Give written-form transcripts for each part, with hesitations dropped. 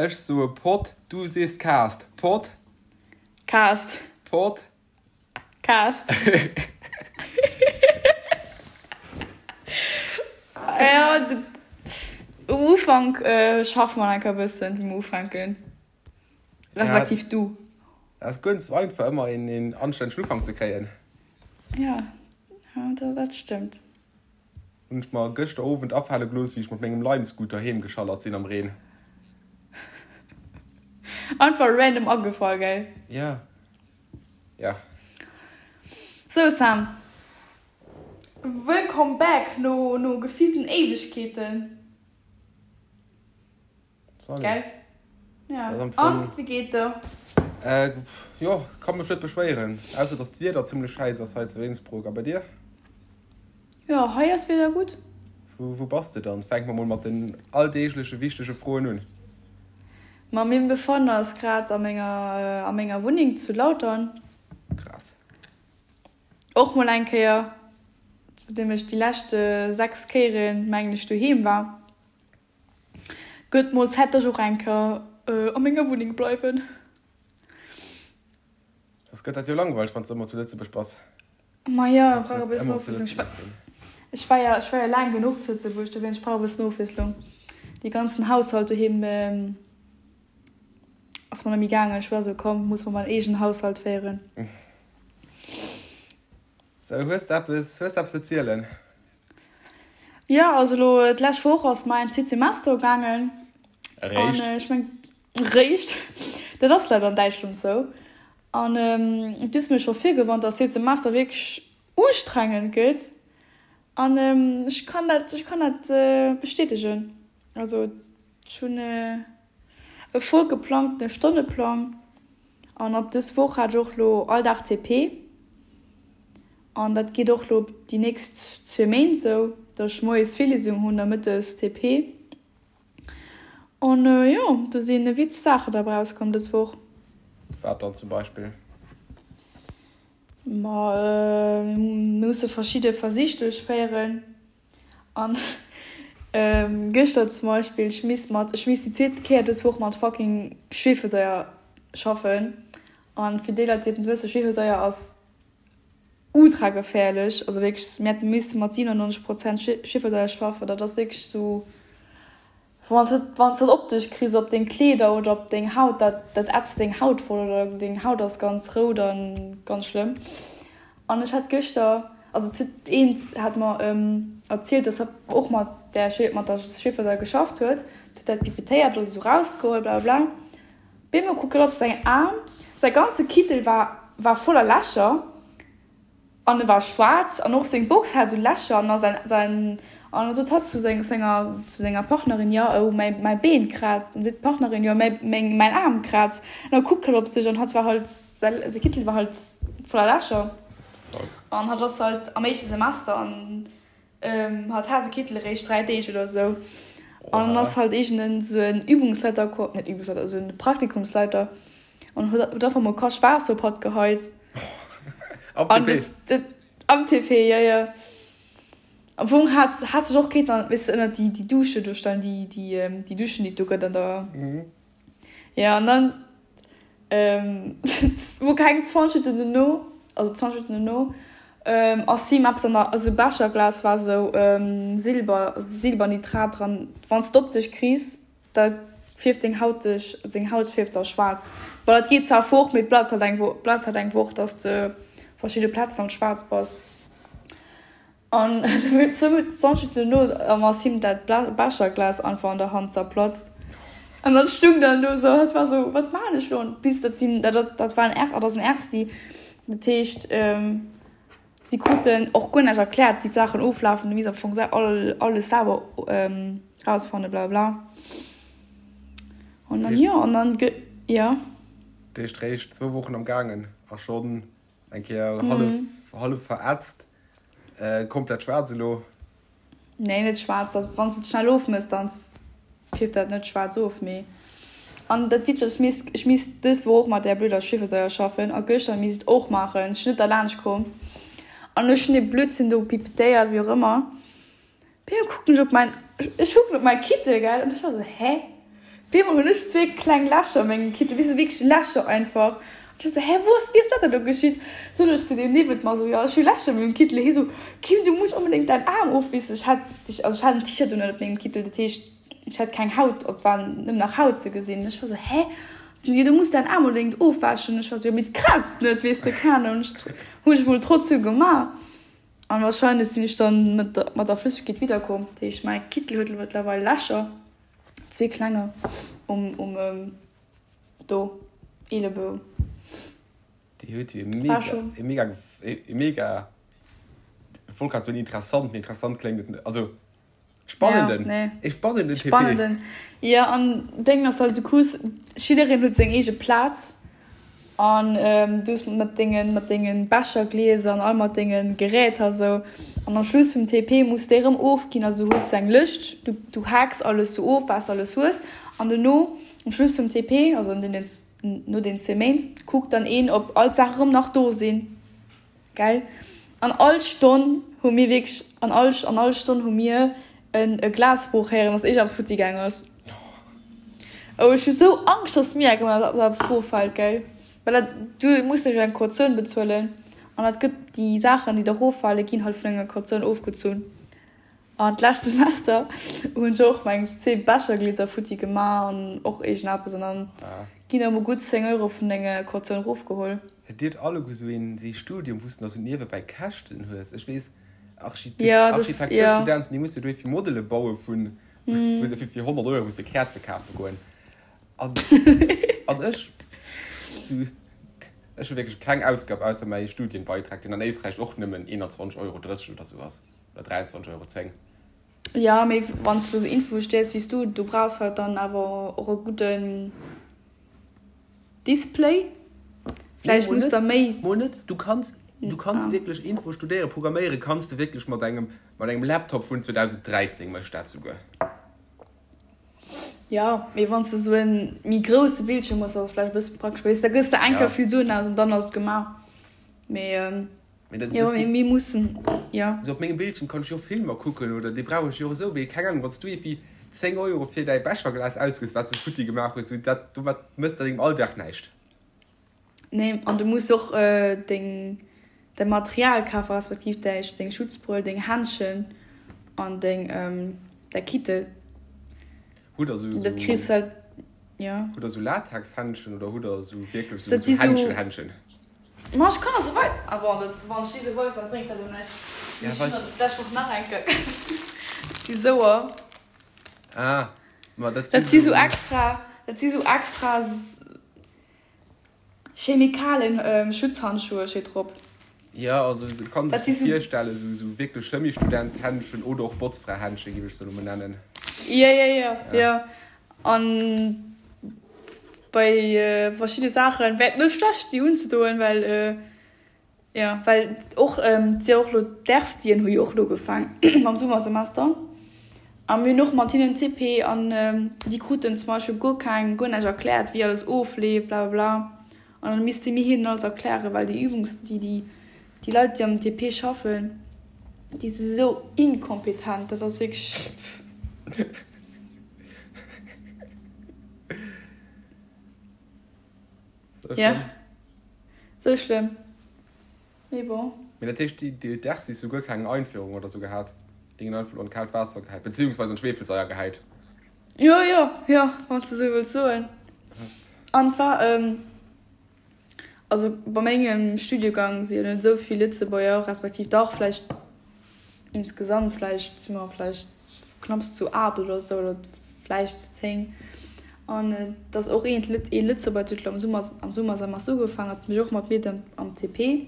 Ech soe Pod, du sees Cast. Pod. Cast. Pod. Cast. Ja, um Ufank schaffe mer enker e bëssen, wéi mer ufänken. Respektiv du. Dat ass guer net sou einfach, ëmmer een anstännegen Ufank ze kréien. Ja, dat stëmmt. Hunn ech mer gëschter Owend afale gelooss, wéi ech mat mengem Lime-Scooter heem geschallert sinn am Reen. Einfach random agefall, gell? Ja. Ja. Sou Sam, wëllkomm back no no gefillten Éiwegkeeten. Salut. Gell? Ja. An, wéi geet der? Äh, jo, ka mech net beschwéieren, ausser dass d'Wieder zimmlech schäiss ass hei zu Innsbruck. A bei dir? Jo, hei ass d'Wieder gutt. Wou, wou bass de dann? Fänke mer mol mat den alldeegleche wichtege Froen un. Ma meng Befann ass grad a menger, a menger Wunneng zu Lautern. Krass. Och mol eng Kéier, nodeem ech déi lescht 6 Kéieren, mengen ech, doheem war. Gëtt mol Zäit dass ech och eng Kéier a menger Wunneng bleiwen. Soss gëtt dat jo langweileg wann s de ëmmer zu Lëtzebuerg bass. Ma jo, ech brauch e bëssen Ofwiesslung. Ech war jo, ech war jo laang genuch zu Lëtzebuerg, dowéinst ech brauch e bëssen Ofwiesslung. Dee ganzen Haushalt doheem ass mer net méi gaangen. Ech war esou, komm, muss mer mäin eegenen Haushalt féieren. Sou, hues de eppes, hues de eppes ze zielen? Jo, also elo d'lescht Woch ass mäin zweet Semester ugaangen. Eréischt? An ech meng, réischt, dat ass leider an Däitschland sou. An du hues mir scho virgewarnt, dass zweet Semester wierklech ustrengend gëtt. An ech kann dat, ech kann dat bestätegen. Also ech hunn e voll geplangtene Stonneplang. An ab dës Woch hat ech och lo all Dag TP. An dat geet och lo déi nächst zwee Méint sou, dass ech moies Virliesung hunn a mëttes TP. An jo, do si witzeg Saachen derbäi rauskomm dës Woch. Wat dann zum Beispill? Ma mir musse verschidde Versich duerchféieren. An gëschter zum Beispill, ech misst mat, ech misst déi zweet Kéier dës Woch mat fucking Schwefelsaier schaffen. An fir déi Leit, déi et net wëssen, Schwefelsaier ass ultra geféierlech. Also wierklech, mir hätte misste mat 97 Prozent Schwefelsaier schaffen. Dat ass wierklech sou. Wann s de dat op dech kriss, op deng Kleeder oder op deng Haut, dat dat ätzt deng Haut voll oder deng Haut ass ganz rout a ganz schlëmm. An ech hat gëschter, also et huet eent hat mer erzielt, dass hatt och mat där mat der Schwefelsaier geschafft huet, huet dat pipetéiert oder sou rausgeholl blablabla. Bemol kuckt hatt op säin Aarm, säi ganze Kittel war war voller Lächer. An e war schwaarz an och seng Box hat esou Lächer an a säin an da sot hatt zu senger zu senger Partnerin, jo oh mäi mäi Been kraazt. An seet d'Partnerin, jo mäi meng mäin Aarm kraazt. An da kuckt hatt op sech an hatt war halt säi säi Kittel war halt voller Lächer. An hatt ass halt am éischte Semester an Hatt hat de Kittel eréischt 3 Deeg oder esou. An dann ass halt iergend esou en Übungsleiter komm, net Übungsleiter, esou en Praktikumsleiter an huet huet einfach mol Kach Waasser op hatt geheit. Am An TP? dat, am TP, jo, jo. Am Fong hat hat sech och kéinten, weess de, ënnert déi déi Dusche do stellen, déi déi déi Duschen, déi et do gëtt an der. Jo, an dann wou keng 20 Minutten dono, also 20 Minutten dono, ass him eppes an der, esou Becherglas war esou Silber, Silbernitrat dran. Wann s de op dech kriss, da fierft deng Haut dech, seng Haut fierft da schwaarz. Bon, dat geet zwar fort, mee et bleift halt eng Wo, bleift halt eng Woch, dass de verschidde Plazen halt schwaarz bass. An 20 Minutten dono ass him dat Becherglas einfach an der Hand zerplatzt. An dat stung dann do sou, hat war sou, wat maan ech lo? Bis dat sinn, dat dat war en R, dat ass en Ersti. Dat heescht, si kruten och guer näischt erkläert, wéi d'Saachen oflafen. Du misst am Fong all alles selwer rausfannen, blablabla. An dann, jo, an dann, jo. Dat heescht, réischt zwou Wochen am gaangen a schonn Eng Kéier hallef, hallef verätzt, komplett schwaarz elo. Nee, net schwaarz. Dat, wann s de et schnell ofmëss, dann fierft dat net schwaarz of. Mee an dat Witzegt ass, ech misst, ech misst dës Woch och mat där blöder Schwiefelsäuer schaffen a gëschter misst ech et och maachen. Ech sinn net derlaanscht komm an ech hunn dee Blödsinn do pipetéiert, wéi och ëmmer. Bem kucken ech op mäin, ech kucken op mäi Kittel, gell, an ech war sou, hä? Op eemol hunn ech zwee kleng Lächer a mengem Kittel, weess de, wierklech Lächer einfach. An ech war sou, hä, wou ass, wéi ass dat denn do geschitt? Sot ech zu deem niewent mer sou, jo, ech hu Lächer a mengem Kittel. Hie sou, Kim, du muss onbedéngt däin Aarm ofwissen. Ech hat, also ech hat en T-Shirt un ënnert mengem Kittel, dat heescht, ech hat keng Haut, et war nëmmen nach Haut ze gesinn. Ech war sou, hä? Sot hie, du muss däin Aarm onbedéngt ofwäschen. Ech war sou, jo, mee et kraazt net, weess de, keng Ahnung. Hunn ech mol trotzdem gemaach. An wahrscheinlech sinn ech dann mat der Flëssegkeet widderkomm. Dat heescht, mäi Kittel huet elo mëttlerweil Lächer. Zwee klenger um um do Eelebou. Déi huet jo e mega, e mega, e mega, ech wollt grad soen interessant, mee interessant kléngt et net, also spannenden, ja, nee. e spannenden TP. Spannenden, jo, an Déngen ass halt, du krus, jiddereen huet seng eege Plaz An du hues mat dengen, mat dengen Becherglieser an all mat dengen Geräter esou. An am Schluss vum TP muss déi erëm ofginn. Also du hues sou eng Lëscht, du, du haaks alles sou of, wat s de alles hues. An dono, am Schluss vum TP, also an deenen, no den zwee Méint, kuckt dann een, ob all d'Saache erëm nach do sinn. Gell? An all Stonn hu mir wierklech, an all, an all Stonn hu mir en e Glasbroch héieren, dass iergendeppes futti gaang ass. Oh, ech hu sou Angscht, dass mir eng Kéier eppes eroffält, gell? Well dat, du muss nämlech eng Kautioun bezuelen an dat gëtt, déi Saachen, déi da eroffale ginn halt vun enger Kautioun ofgezunn. An d'lescht Semester hunn ech och meng zwee Becherglieser futti gemaach an och iergendeppes an dann ginn der mol gutt 10 Euro vun denger Kautioun erofgeholl. Hutt Dir alleguer sou een wéi Studium, wou s de nach sou niewebäi Käschten hues? Ech weess, Architekturstudenten, déi musse jo fir Modele baue vun, wou se fir 100 Euro musse Käerze kafe goen. An, an ech, sou, ech hu wierklech keng Ausgab ausser mäi Studienbeitrag, deen an Éisträich och nëmmen 21,30 Euro oder sou ass, oder 23,10 Euro. Jo, mee wann s de elo sou Info studéiers wéi s du, du brauchs halt dann awer och e gudden. Display? Vläicht muss der méi. Mol net, du kanns, du kanns wierklech Info studéieren, programméiere kanns de wierklech mat engem, mat engem Laptop vun 2013 mécht dat souguer. Jo, mee wann s de sou en méi grousse Bildschierm hues, ass et vläicht e bësse praktesch, well da gëss de eng Kéier vill Suen aus an dann ass et gemaach. Mee. Mee dat, jo, mee mir mussen, jo. Sou op mengem Bildschirm kann ech jo Filmer kucken oder dee brauch ech jo och esou, mee keng Ahnung, wann s du iergendwéi 10 Euro fir däi Becherglas ausgëss, wat s de futti gemaach hues, sou dat, domat mëss de dengem Alldag näischt. Nee, an du muss och deng, däi Material kafen, respektiv däi, deng Schutzbrëll, deng Händschen an deng, däi Kittel. Hutt der sou, Dat kriss halt, jo. Hutt der sou Latexhändschen oder hutt der sou wierklech sou Händschen-Händschen? Ma ech kann der se wei. Ah bon, dat, wann ech déi se weisen, dat bréngt der elo näischt. Ja, weis. Ech hunn der d'lescht Woch nach eng Kéier. Dat si souer. Ah, ma dat si. Dat si sou extra, dat si sou extra Chemikalen Schutzhandschuhe steet drop. Ja, also et kann sech sou virstellen, sou sou wierklech Chemiestudent-Händschen oder och Botzfra-Händschen, géif ech se elo mol nennen. Ja, ja, ja, ja. An bei verschidde Saachen wär et net schlecht déi unzedoen, well jo well och et si jo och elo d'Erstien hu jo och elo ugefaang mam Summersemester a mir hunn och mat hinnen TP an déi kruten zum Beispill guer keng guer näischt erkläert wéi alles ofleeft blablabla an dann misste mir hinnen alles erklären, well déi Übungs déi déi déi Leit déi am TP schaffen déi si sou inkompetent, dat ass wierklech. Ja, sou schlëmm. Mee bon. Mee dat heescht, déi d'Ersis hu guer keng Einführung oder sou gehat? Déi ginn einfach an d'kaalt Waasser gehäit, beziehungsweise an d'Schweefelsaier gehäit. Jo, jo, jo, wann s de sou wëlls soen. An et war, Also bei mengem Studiegang si jo net esou vill Lëtzebuerger, respektiv dach vläicht insgesamt vläicht si mer vläicht knapps zu 8 oder esou oder vläicht zu 10. An et ass och een ee Lëtzebuerger huet elo am Summer am Summersemester ugefaangen, hat mech och mat mir am am TP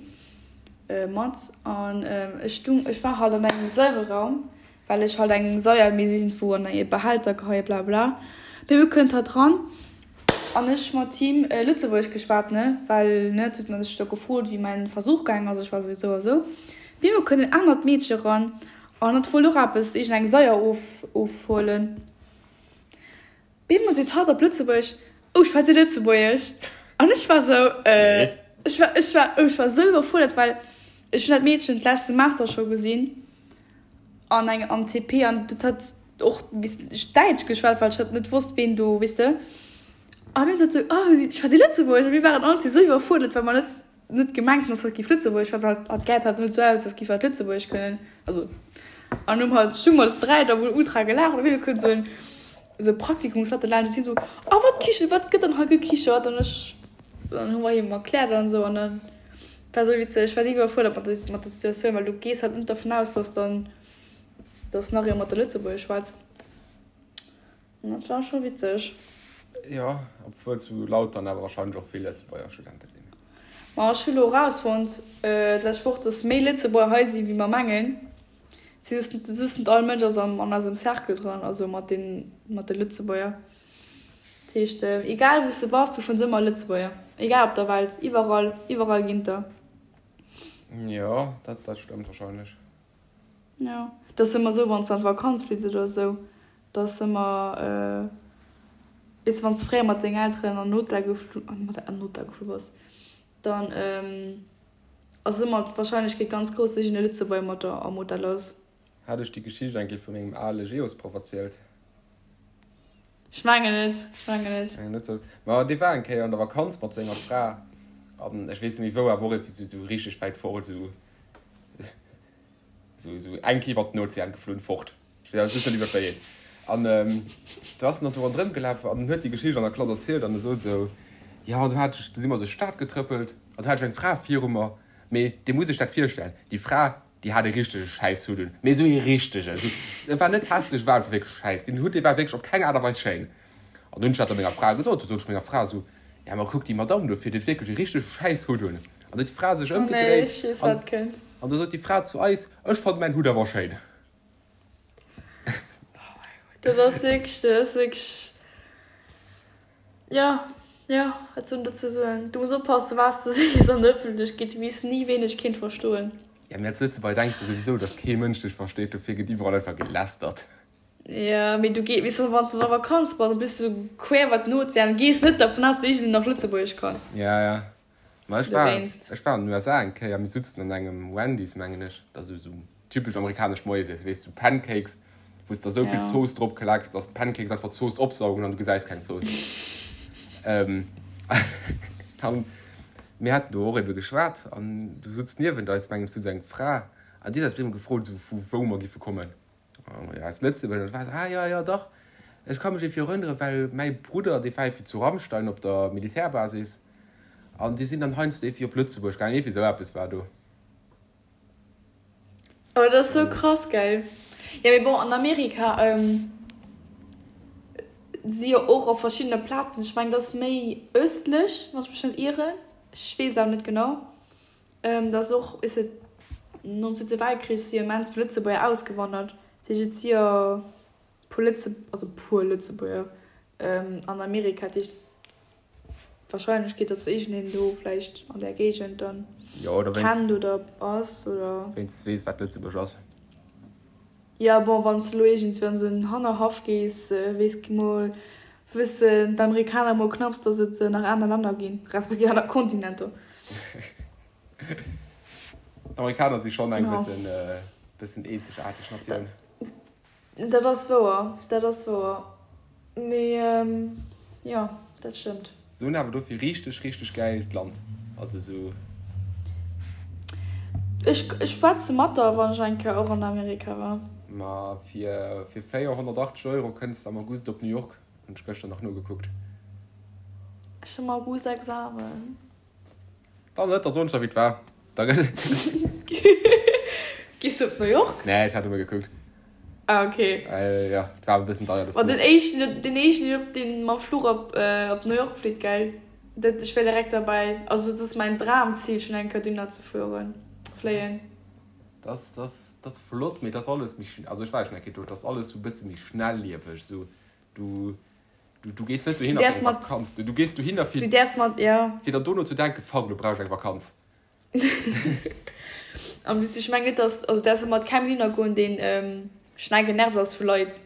mat. An ech stung ech war halt an engem Säureraum Well ech halt eng Saier misst iergendwou an e Behälter geheien, bla bla. Bebe kënnt hatt ran an ech mat him Lëtzebuergesch geschwat, ne, well, ne, et huet mer sech do gefrot, wéi mäin Versuch gaang ass, ech war sou, sou a sou. Bebe kënnt en anert Meedche ran an hatt wollt och eppes, iergendeng Saier of, ofhuelen. Bemol seet hatt op Lëtzebuergesch, Oh, schwätzt Dir Lëtzebuergesch? An ech war sou, Äh, ech war, ech war, oh, ech war sou iwwerfuerdert, well ech hunn dat Meedchen d'lescht Semester scho gesinn an engem, am TP an dat hat. och Däitsch geschwat, well ech hat net wosst, ween do, weess de. A mir sot sou, oh, si schwätzt Lëtzebuergesch. A mir waren all sou iwwerfuerdert, well mer net, net gemengt hunn, dass hatt géif Lëtzebuergesch schwätzen. Hatt, hatt gesäit halt net sou aus, als géif hatt Lëtzebuergesch kënnen. Also, an hunn halt, stung mer zu dräi da mol ultra gelaacht. An op eemol kënnt sou en, sou e Praktikumsleiter laanscht an si sou, oh, wat kichert, wat gëtt dann hei gekichert? An ech, dann hu mer him erkläert an sou. An dann war sou witzeg. Ech war si iwwerfuerdert mat der, mat der Situatioun, well du gees halt net dervun aus, dass dann, dass nach ee mat der Lëtzebuergesch schwätzt. An dat war scho witzeg. Jo, obwuel zu Lautern awer wahrscheinlech och vill Lëtzebuerger Studente sinn. Ma ech hu lo erausfonnt d'lescht Woch, dass méi Lëtzebuerger hei si wéi mer mengen. Si just just net all Mënsch ass am an eisem Cercle dran, also mat den mat de Lëtzebuerger. Dat heescht egal wou s de bass, du fënns ëmmer Lëtzebuerger, egal op der Welt, iwwerall, iwwerall ginn der. Jo, dat dat stëmmt wahrscheinlech. Jo, et ass ëmmer esou, wann s de an d'Vakanz flitt oder esou, da ass ëmmer, weess de, wann s de fréier mat dengen Elteren an den Hotel geflu, an den Hotel geflu bass, dann ass ëmmer d'Warscheinlechkeet ganz grouss, dass iergend e Lëtzebuerger mat der am Hotel ass. Hat ech déi Geschicht eng Kéier vu mengem ale Geosproff erzielt? Ech mengen net, ech mengen net. Mengen net sou. Ma dee war eng Kéier an der Vakanz mat senger Fra an ech weess net méi wou, awer och iergendwéi sou richteg wäit fort, sou. Sou, sou eng Kéier iwwer den Ozean geflunn, fort. Ech weess awer just net iwwer wéi een. An do ass en dann do ronderëm gelaf an huet déi Geschicht an der Klass erzielt an e sot esou, Jo, an do hat ech, do si mer duerch d'Stad getrëppelt an do hat ech eng Fra viru mer, mee dir musst iech dat virstellen, déi Fra, déi hat e richtege Schäisshutt un, mee esou ee richtegen, esou, e war net hässlech, e war einfach wierklech schäiss, deen Hutt, dee war wierklech op keng Aart a Weis schéin. An dunn hunn ech dat da menger Fra gesot, du sot ech menger Fra esou, Ja, ma kuck déi Madamm do vir, déi huet wierklech e richtege Schäisshutt un. An du huet d'Fra sech Oh nee, ech weess ëmgedréit an, wat kënnt. an du sot déi Fra zu eis, Ech fannen mäin Hutt awer schéin. Oh mäi Gott, dat ass wierklech, dat ass wierklech, jo, jo, wat soll een dozou soen? Du muss oppassen, wat s de sees an der Ëffentlechkeet, du weess ni, ween dech kéint verstoen. Ja, mee als Lëtzebuerger denks de souwisou, dass kee Mënsch dech versteet, dofir gëtt iwwerall einfach gelästert. Jo, mee du gees, weess de, wann s de an der Vakanz bass, da bist du quer iwwer den Ozean, gees net dervun aus, dass iergendeen nach Lëtzebuergesch kann. Ja, ja. Ma ech war, ech war an den USA eng Kéier, mir sutzen an engem Wendy's, mengen ech, dat ass esou typesch amerikanescht Moiesiessen, weess du, Pancakes, wou s de esou vill Zooss drop klecks, dass d'Pancakes einfach d'Zooss opsaugen an du gesäis keng Zooss. An mir haten do och ebe geschwat an du sutz niewent eis, mengen ech, sutz eng Fra an déi huet eis op eemol gefrot, esou vu wou mer giffe kommen. Jo, aus Lëtzebuerg. An da war se, ah jo, jo, dach, ech ka mech iergendwéi erënneren, well mäi Brudder, dee war iergendwéi zu Ramstein op der Militärbasis an déi sinn dann heiansdo iergendwéi op Lëtzebuerg gaangen, iergendwéi esou eppes war do. Oh, dat ass sou krass, gell? Jo, mee bon, an Amerika si jo och op verschiddene Plazen, ech mengen, dat ass méi ëstlech, wann ech mech net ieren, ech weess et awer net genau. Dass och, weess de, nom Zweete Weltkrich si jo immens vill Lëtzebuerger ausgewandert. Dat heescht, et si jo puer Lëtze, also puer Lëtzebuerger an Amerika. Dat heescht, d'Warscheinlechkeet, dass iergendeen do vläicht an där Géigend dann kennt oder ass oder. Wéinstens weess, wat Lëtzebuerg ass. Jo, bon, wann s de elo iergendswéi an esou en Hannerhaff gees, weess mol, wëssen d'Amerikaner mol knapps, datt et nach aner Länner ginn, respektiv aner Kontinenter. D'Amerikaner si schonn eng bëssen, bëssen eenzegaarteg Natioun. Dat ass wouer, dat ass wouer. Mee jo, dat stëmmt. Se hunn awer dofir richteg, richteg gäilt Land. Also sou. Ech schwätze mat der, wann ech eng Kéier och an Amerika war. Ma fir 480 Euro kënns de am August op New York, hunn ech gëschter nach nogekuckt. Ech hunn am August Examen. Dann net, da soen ech der wéi et war. Da gëtt. Gees du op New York? Nee, ech hat nëmme gekuckt. Ah ok. Jo, et war awer e bëssen deier de Fluch. Ma den éischten, den éischten op deen mam Fluch op op New York flitt, gell? Dat, ech wär direkt derbäi. Also dat ass mäin Dramzil schonn eng Kéier dohinner ze fueren, fléien. Dat ass, dat ass, dat ass flott, mee dat ass alles méi, also ech war jo schonn eng Kéier do, dat ass alles sou e bësse méi schnellieweg, sou du. Du, du gees net dohinner fir eng Vakanz. Du, du gees dohinner fir, du däerfs mat, ja. fir dann dono ze denken, fuck, elo brauch ech eng Vakanz. En plus, ech mengen net, dass, also däerfs mat kengem hinner goen, deen ähm, schnell genervt ass vu Leit.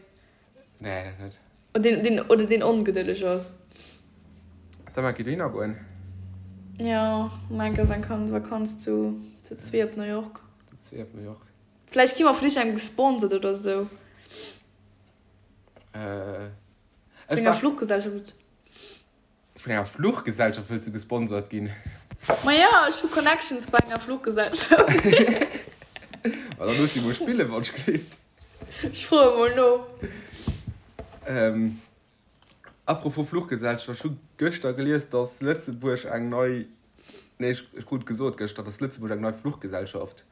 Nee, dat net. Oder deen, deen, oder deen ongedëlleg ass. Soll mer eng Kéier dohinner goen? Ja, mer eng Kéier eng Vakanz zu, zu zwee op New York. Zu zwee op New York. Vläicht gi mer vun iergendengem gesponsert oder sou. Äh, Vun enger Fluchgesellschaft. Vun enger Fluchgesellschaft wëlls du gesponsert ginn? Ma jo, ech hu Connections bei enger Fluchgesellschaft. Ma da looss déi mol spillen, wann ech gleeft. Ech froe mol no. Ähm, apropos Fluchgesellschaft, ech hu gëschter gelies, dass Lëtzebuerg eng nei, nee, ech krut gesot gëschter, dass Lëtzebuerg eng nei Fluchgesellschaft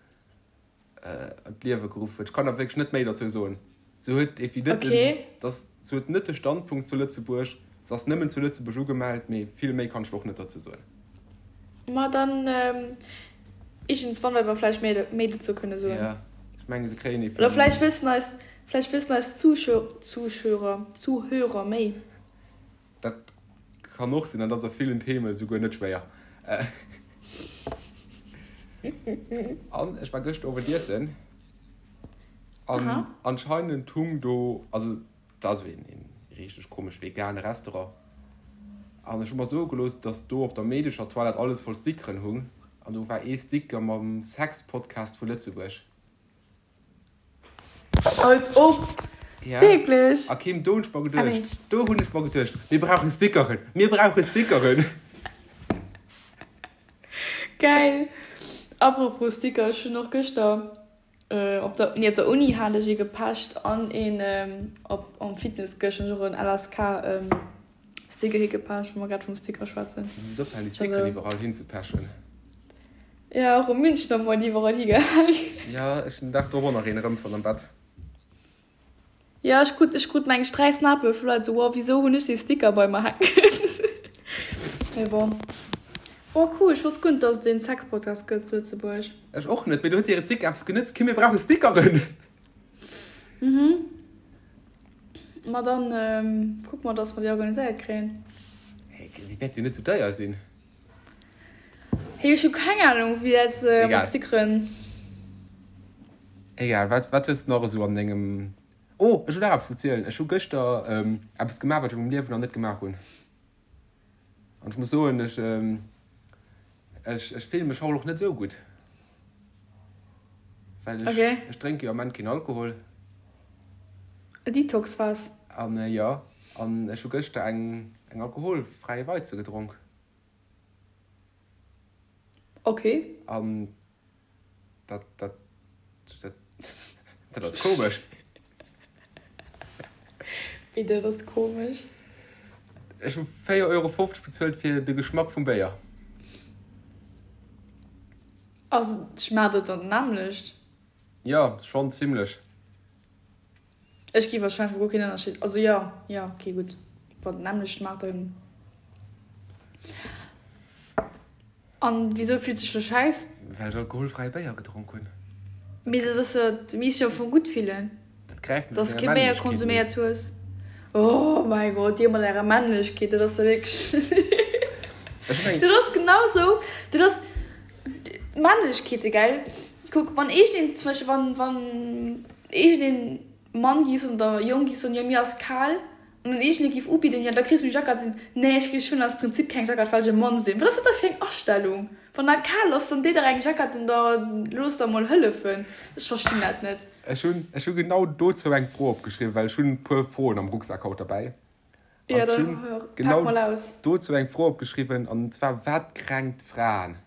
an d'Liewe geruff huet. Ech kann der wierklech net méi dozou soen. Se huet evi net den, Okay. dass, se huet net de Standpunkt zu Lëtzebuerg, se ass nëmmen zu Lëtzebuerg ugemellt, mee vill méi kann ech der och net dozou soen. Ma dann iergendswann wäerte mer vläicht méi, méi dozou kënne soen. Ja, ech menge se kréien Oder evi. vläicht wëssen eis, vläicht wëssen eis Zuschö, Zuschörer, Zuhörer méi. Dat kann och sinn, an dat ass a villen Theme souguer net schwéier. An ech war gëschter Owend iessen an anscheinend hung do, also dat ass een richteg komesch vegane Restaurant, an ech hu mer soe gelooss, dass do op der meedescher Toilette alles voll Stickeren hung an do war ee Sticker mam Sex-Podcast vu Lëtzebuerg. Als ob! Ja. Wierklech? A Kim, do hunn ech mer geduecht, do hunn ech mer geduecht, mir brauche Stickeren, mir brauche Stickeren! Geil! Apropos Sticker, ech hunn och gëschter op der, nee op der Uni hat ech ee gepecht an een op am Fitness gëschter hunn ech och en LSK Sticker higepecht, wa mer grad vum Sticker schwätzen. Muss ophalen déi Stickeren iwwerall hinzepechen. Jo, och um Münchner Moart iwwerall higehaang. Jo, ech hunn den Dag drop och nach een erëmfonnt am Bett. Jo, ech krut, ech krut meng ech 3 Snappe vu Leit esou, wow, wisou hunn ech dee Sticker bei mer hänken? Mee bon. Oh cool, ech wosst guer net, dass et een Sexpodcast gëtt zu Lëtzebuerg. Ech och net, mee do huet hire Sticker eppes genëtzt. Kim, mir brauche Stickeren! Mhm. Ma dann kucke mer, dass mer déi organiséiert kréien. Hey, déi wäert jo net sou deier sinn. Hey, ech hu keng Ahnung, wéi dat mat Stickeren. Egal, wat, wat hues de nach esou an dengem. Oh, ech hunn nach eppes ze zielen. Ech hu gëschter eppes gemaach, wat ech a mengem Liewen nach net gemaach hunn. An ech muss soen, ech, ech, ech fillen mech haut och net esou gutt. Well ech, Okay. ech drénke jo am Ament keen Alkohol. E Detox-Phas. An jo, an ech hu gëschter eng, eng alkoholfräi Weize gedronk. Okay. An dat, dat, dat, dat ass komesch. Wéi dat ass komesch? Ech hu 4,50 Euro bezuelt fir de Geschmack vum Béier. Ass, schmaacht et dann d'nämmlecht? Jo, schonn zimlech. Ech gi wahrscheinlech guer keen Ënnerscheed, also jo, jo, ok, gutt, wann et d'nämmlecht maacht, dann. An wisou fills du dech lo schäiss? Well ech alkoholfräie Béier gedronk hunn. Mee dat ass jo, du misst jo am Fong gutt fillen, Dat gräift mech dass op du menger kee Béier Männlechkeet un. konsuméiert hues. Oh mäi Gott, dir mat ärer Männlechkeet, dat ass jo wierklech, Ech hunn eng. dat ass genau sou, dat ass Männlechkeete, gell? Kuck, wann iergendeen, zum Beispill wann, wann iergendeen Mann giff soen oder Jong giff soen, jo mir ass kal, an dann iergendee giff ubidden, jo da kriss du eng Jackett, sinn, nee ech ech hunn aus Prinzip keng Jackett, well ech e Mann sinn. Wat ass dat da fir eng Astellung? Wann der kal ass, dann déi der eng Jackett un da looss der mol hëllefen. Ech verstinn dat net. Ech hunn, ech hu genau dozou eng Fro opgeschriwwen, well ech hunn e puer Froen am Rucksak haut derbäi. Jo, An ech da hunn pak genau mol aus. dozou eng Fro opgeschriwwen, an zwar, Wat kränkt Fraen?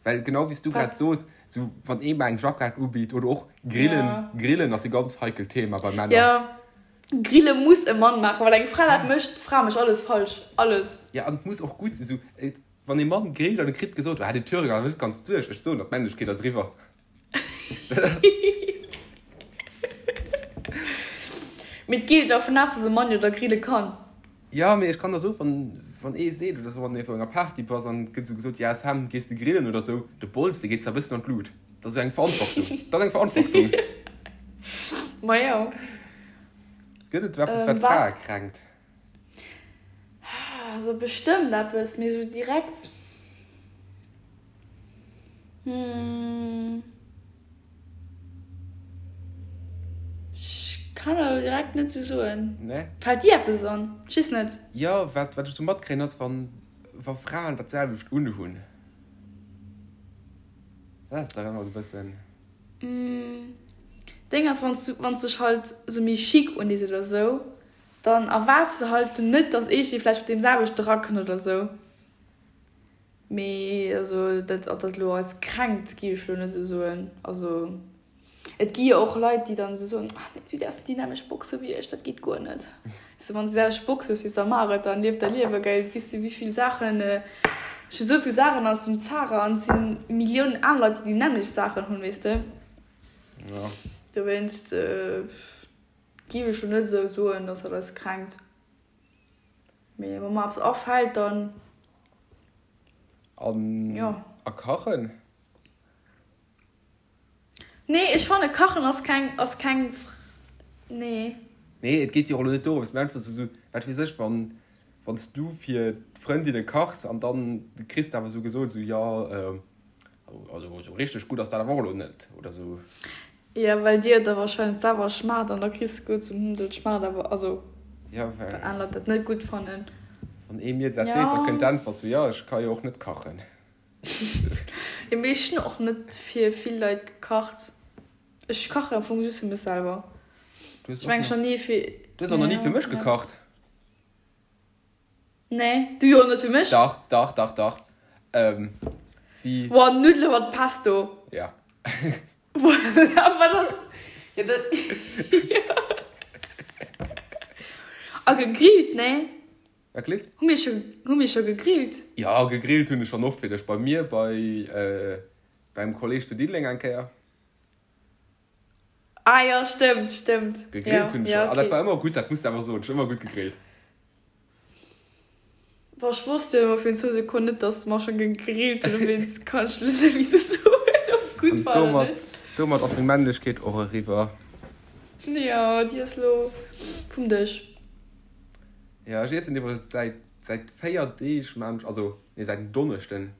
Well genau wéi s du grad Wat? soos, sou wann ee mer eng Jackett ubitt oder och Grillen, Ja. Grillen ass e ganz heikelt Thema bei Männer. Ja, Grille muss e Mann maachen, well eng Fra dat mécht, d'Fra mécht alles falsch, alles. Ja, an et muss och gutt sinn. Sou, wann ee Mann grillt an e kritt gesot, ah, den Thüringer ass net ganz duerch, ech soen der, d'Männlechkeet ass eriwwer. Mee et geet dervun aus, dass e Mann jo da grille kann. Jo, mee ech kann der soen, wann, wann ee seet oder sou, wann ee op enger Party bass an et gëtt sou gesot, ja Sam, gees de grillen oder sou, de Bols, dee geet zwar e bëssen an d'Lut. Dat ass sou eng Verantwortung. Dat ass eng Verantwortung. Ma jo. Gëtt et sou eppes, wat Wat? Frae kränkt? Also bestëmmt eppes, mee sou direkt, hm. Ech kann der elo direkt net sou soen. Nee? Fällt dir eppes an? Ech weess net. Jo, wat wat ech sou matkréien ass, wann wa Fraen dat selwecht unhunn. Dat ass dach ëmmer sou bëssen. Deng ass, wann s du wann s dech halt sou méi chic undees oder sou. Dann erwaarts de halt net, dass eescht vläicht mat deem selwechte rakënnt oder sou. Mee also dat, ob dat elo eis kränkt, géif ech elo net esou soen. Also et gi jo och Leit, déi dann esou soen, ach nee, du däerfs net déi nämmlecht Box hu wéi ech, dat geet guer net. Weess de, wann s de déi selwecht Box hues wéi s, da maach et, dann lief däi Liewe, gell. Weess de wéi vill Saachen, ech hu sou vill Saachen aus dem Zara an et si Milliounen aner Leit, déi déi nämmlecht Saachen hunn, weess de. Jo. Dowéinst géif ech elo net esou soen, dass dat eis kränkt. Mee wa mer eppes afält, dann. An jo. A kachen? Nee, ech fanne kachen ass keng, ass keng, nee. Nee, et geet jo och elo net dorëms, mee einfach esou, wat weess ech, wann, wann s du fir d'Frëndinne kachs an dann kriss de awer esou gesot, esou, jo, also esou richteg gutt ass dat awer och elo net, oder esou. Jo, well dir et da wahrscheinlech selwer schmaacht an da kriss de guer zum Hm, dat schmaacht awer, also Ja, well well aner Leit dat net gutt fannen. Wann ee mir dat seet, da kënnt d'Äntwert sou, jo, ech ka jo och net kachen. Jo, mee ech hunn och net fir vill Leit gekacht. Ech kachen am Fong just fir mech selwer. Du hues Ech och mengen nach, schon ni fir, du hues och nach ni fir ja, mech ja. gekacht. Nee, du jo net fir mech. Dach, dach, dach, dach. Ähm, wéi. Boah, Nuddele mat Pesto. Ja. Voilà, wat ass. Ja, dat. A gegrillt, nee? Wat gleeft? Hu mir scho, hu mir scho gegrillt? Ja, gegrillt hunn ech schonn oft fir dech. Bei mir, bei, äh, beim Kolleg zu Diddeleng eng Kéier. Ah jo, stëmmt, stëmmt. Gegrillt hunn ech ja, schon. An dat okay. war ëmmer gutt, dat muss de awer soen. Ech hunn ëmmer gutt gegrillt. Boah, ech wosst jo ëmmer fir zwou Sekonnen net, dass mer schon gegrillt hunn, dowéinst kann ech lo net méi sou soen, ob et gutt An war oder domat, net. domat ass meng Männlechkeet och eriwwer. Jo, déi ass lo vum Dësch. Jo, ech iessen iwwregens säit, säit 4 Deeg maan ech, also nee, säit en Donneschden,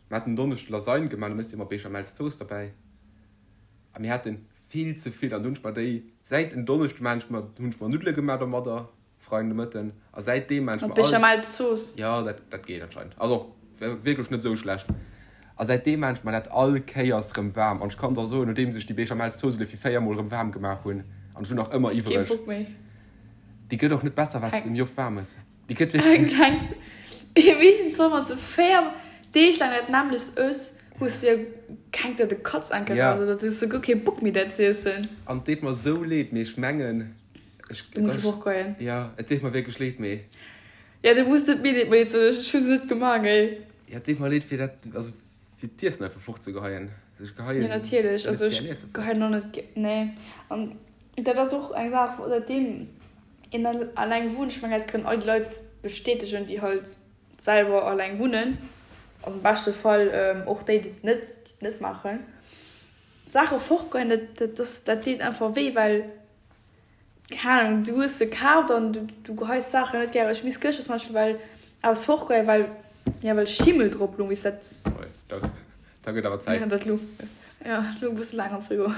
Mir haten en Donneschde Lasagne gemaach, do méchs de jo mat Béchamelszooss derbäi. A mir hate vill ze vill an du hunn ech mer déi säit en Donneschde maan ech mer, hunn ech mer Nuddele gemaach domadder, Freien de Mëtten. A säitdeem maan ech Mat mer all. Béchamelszooss? Jo, dat, dat geet anscheinend. Ass och wierklech net esou schlecht. A säitdeem maan ech mer dat all Kéiers rëm waarm. An ech kann der soen, nodeems ech déi Béchamelszooss elo fir 4 mol rëm waarm gemaach hunn, an ech hunn nach ëmmer Keen iwwreg, Bock méi. déi gëtt och net besser wat s de méi oft waarm ëss. Déi gëtt wierklech. Keng. Meeschtens wann s de 4 Deeg laang dat nämmlecht ëss, hues de jo keng der de Katz enke Ja. raus oder du hues souguer kee Bock méi dat z'iessen. An et deet mer sou leed, mee ech mengen, ech, Du muss fortgoen. Ja, et deet mer wierklech leed, mee. Ja, du muss net mir leed, leed soen, ech hu se net gemaach, ey. Ja, et deet mer leed fir dat, also fir d'Iessen einfach fortzegeheien. Also ech geheien Ja, natierlech, net also gär ech Iesse fort. geheien och net gär, nee. An dat ass och eng Saach, säitdeem een alleng wunnt, ech mengen dat kënnen all déi Leit bestätegen, déi halt selwer alleng wunnen, am beschte Fall och déi, déi et net, déi et net maachen, Saache fortgoen, dat, dat ass, dat deet einfach wéi, well, keng Ahnung, du hues se kaaft an du, du geheis Saachen net gären. Ech misst gëschter zum Beispill well eppes fortgoen, well, jo, well Schimmel drop lung, weess dat. Oi, da, da gëtt awer Zäit. Ja, dat lung, ja, dat lung e bësse laang am Frigo.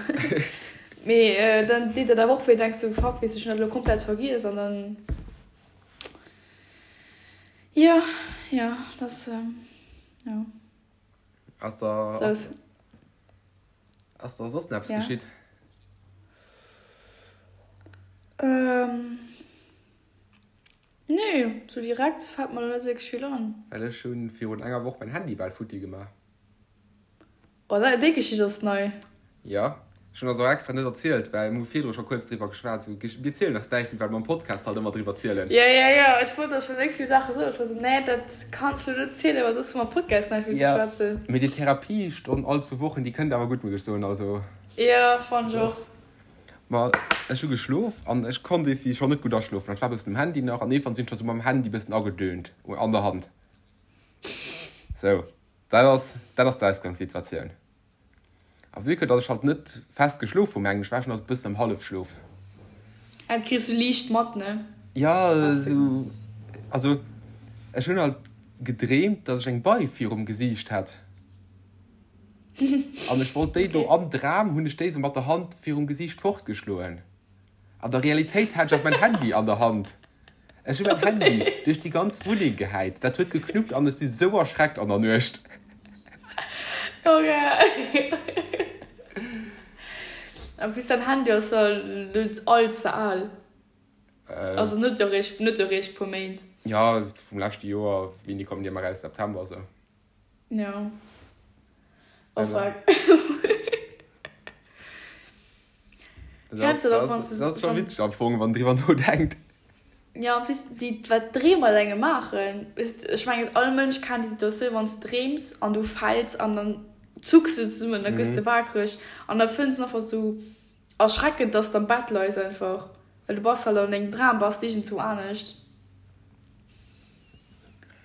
Mee dann deet dat awer och wéi, denks du, fuck, weess, ech hunn dat elo komplett vergiess an dann, jo, jo, dat ass, jo. Ass da, ass, ass da soss nach eppes Ja. geschitt? Ähm, nee, sou direkt fält mer lo net wierklech vill an. Well ech hunn virun enger Woch mäin Handy bal futti gemaach. Oh, dat, déi Geschicht ass nei. Jo, ech hunn ass och extra net erzielt, well mir hu virdru scho kuerz driwwer geschwat. Sou, mir zielen eis näischt méi, well mer am Podcast halt ëmmer driwwer zielen. Jo, jo, jo, ech wollt der scho léng vill Saache soen. Ech war sou, nee, dat kanns du net zielen, well soss hu mer am Podcast näischt méi ze Jo, schwätzen. mee déi Therapiestonn all zwou Wochen, déi kënnt awer gutt, muss ech soen. Also. Jo, fannt ech och. Ma ech hu geschlof an ech konnt iergendwéi scho net gutt aschlofen. An ech war e bëssen um Handy nach an iergendwann sinn ech scho sou mam Handy e bëssen agedöhnt an der Hand. Sou, dat ass, dat ass d'Ausgangssituatioun. A vue que datt ech halt net fest geschlof hu mengen ech, war ech nach e bëssen am Hallefschlof. Dat kriss du liicht mat, ne? Jo, esou, also ech hunn halt gedreemt, datt ech eng Bei virum Gesiicht hat. An ech wollt déi do, am Dram hunn ech déi esou mat der Hand virum Gesiicht fortgeschloen. An der Realitéit hat ech awer mäin Handy an der Hand. Ech hu mäin Handy duerch déi ganz Wunneng gehäit. Dat huet geknuppt an ech si sou erschreckt an der Nuecht. Okay. En plus däin Handy ass jo net all ze al. Also net eréischt, net eréischt puer Méint. Jo, vum leschte Joer, wéini kommen déi ëmmer eraus? September esou. Jo. Oh fuck. Dat ass scho witzeg am Fong, wann een driwwer nodenkt. Jo, en plus déi, wat Dreem mat engem maachen. Ech mengen, all Mënsch kennt déi Situatioun, wann s de dreems an du fäls an dann zucks du zesummen, da gëss de wakereg an da fënns de einfach esou erschreckend, dass de am Bett leis einfach, well du bass halt an dengem Dram, bass de iergendzwou anescht.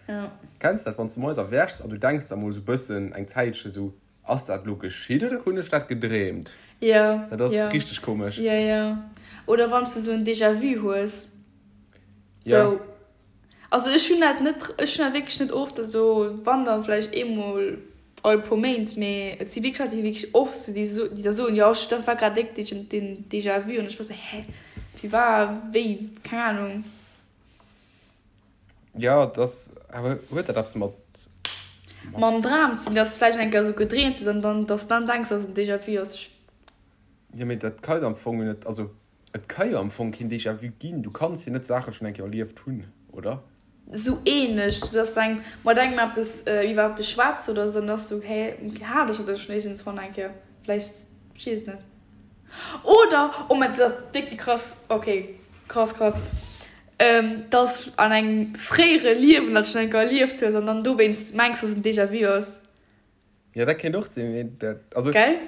Jo. Kenns dat, wann s de moies erwächs an du denks der mol esou bëssen eng Zäitche sou, Ass dat lo geschitt oder hunn ech dat gedreemt? Jo, Dat ass richteg komesch. Jo, jo. Oder wann s de sou en Déjà-vu hues. Sou, also ech hunn dat net, ech hunn dat wierklech net oft, also wann dann vläicht eemol all puer Méint, mee et si wierklech Leit, déi wierklech oft sou, déi so, déi da soen, jo ech, dat war grad déck den Déjà-vu an ech war sou, hä, wéi war, wéi, keng Ahnung. Jo, et ass, awer huet dat eppes mat. Mam Dram ze dinn, dass de vläicht eng Kéier esou gedreemt hues an dann, dass de dann denks, dass et en Déjà-vu ass. Ech. Jo, mee dat ka jo am Fong net, also et ka jo am Fong keen Déjà-vu ginn. Du kanns jo net Saache schonn eng Kéier erlieft hunn, oder? Esou ähnlech, sou dass de eng, mat engem eppes, iwwer eppes schwätz oder esou, an da ass sou, hä, hat ech dat elo schonn iergendswann eng Kéier? Vläicht, ech weess et net. Oder, oh mein, dat ass déck déi krass, okay, krass, krass. Dass an engem fréiere Liewen dat schonn eng Kéier erlieft hues an dann dowéinst mengs, dass et en Déjà-vu ass. Jo, dat kéint och sinn, mee dat, also. Gell?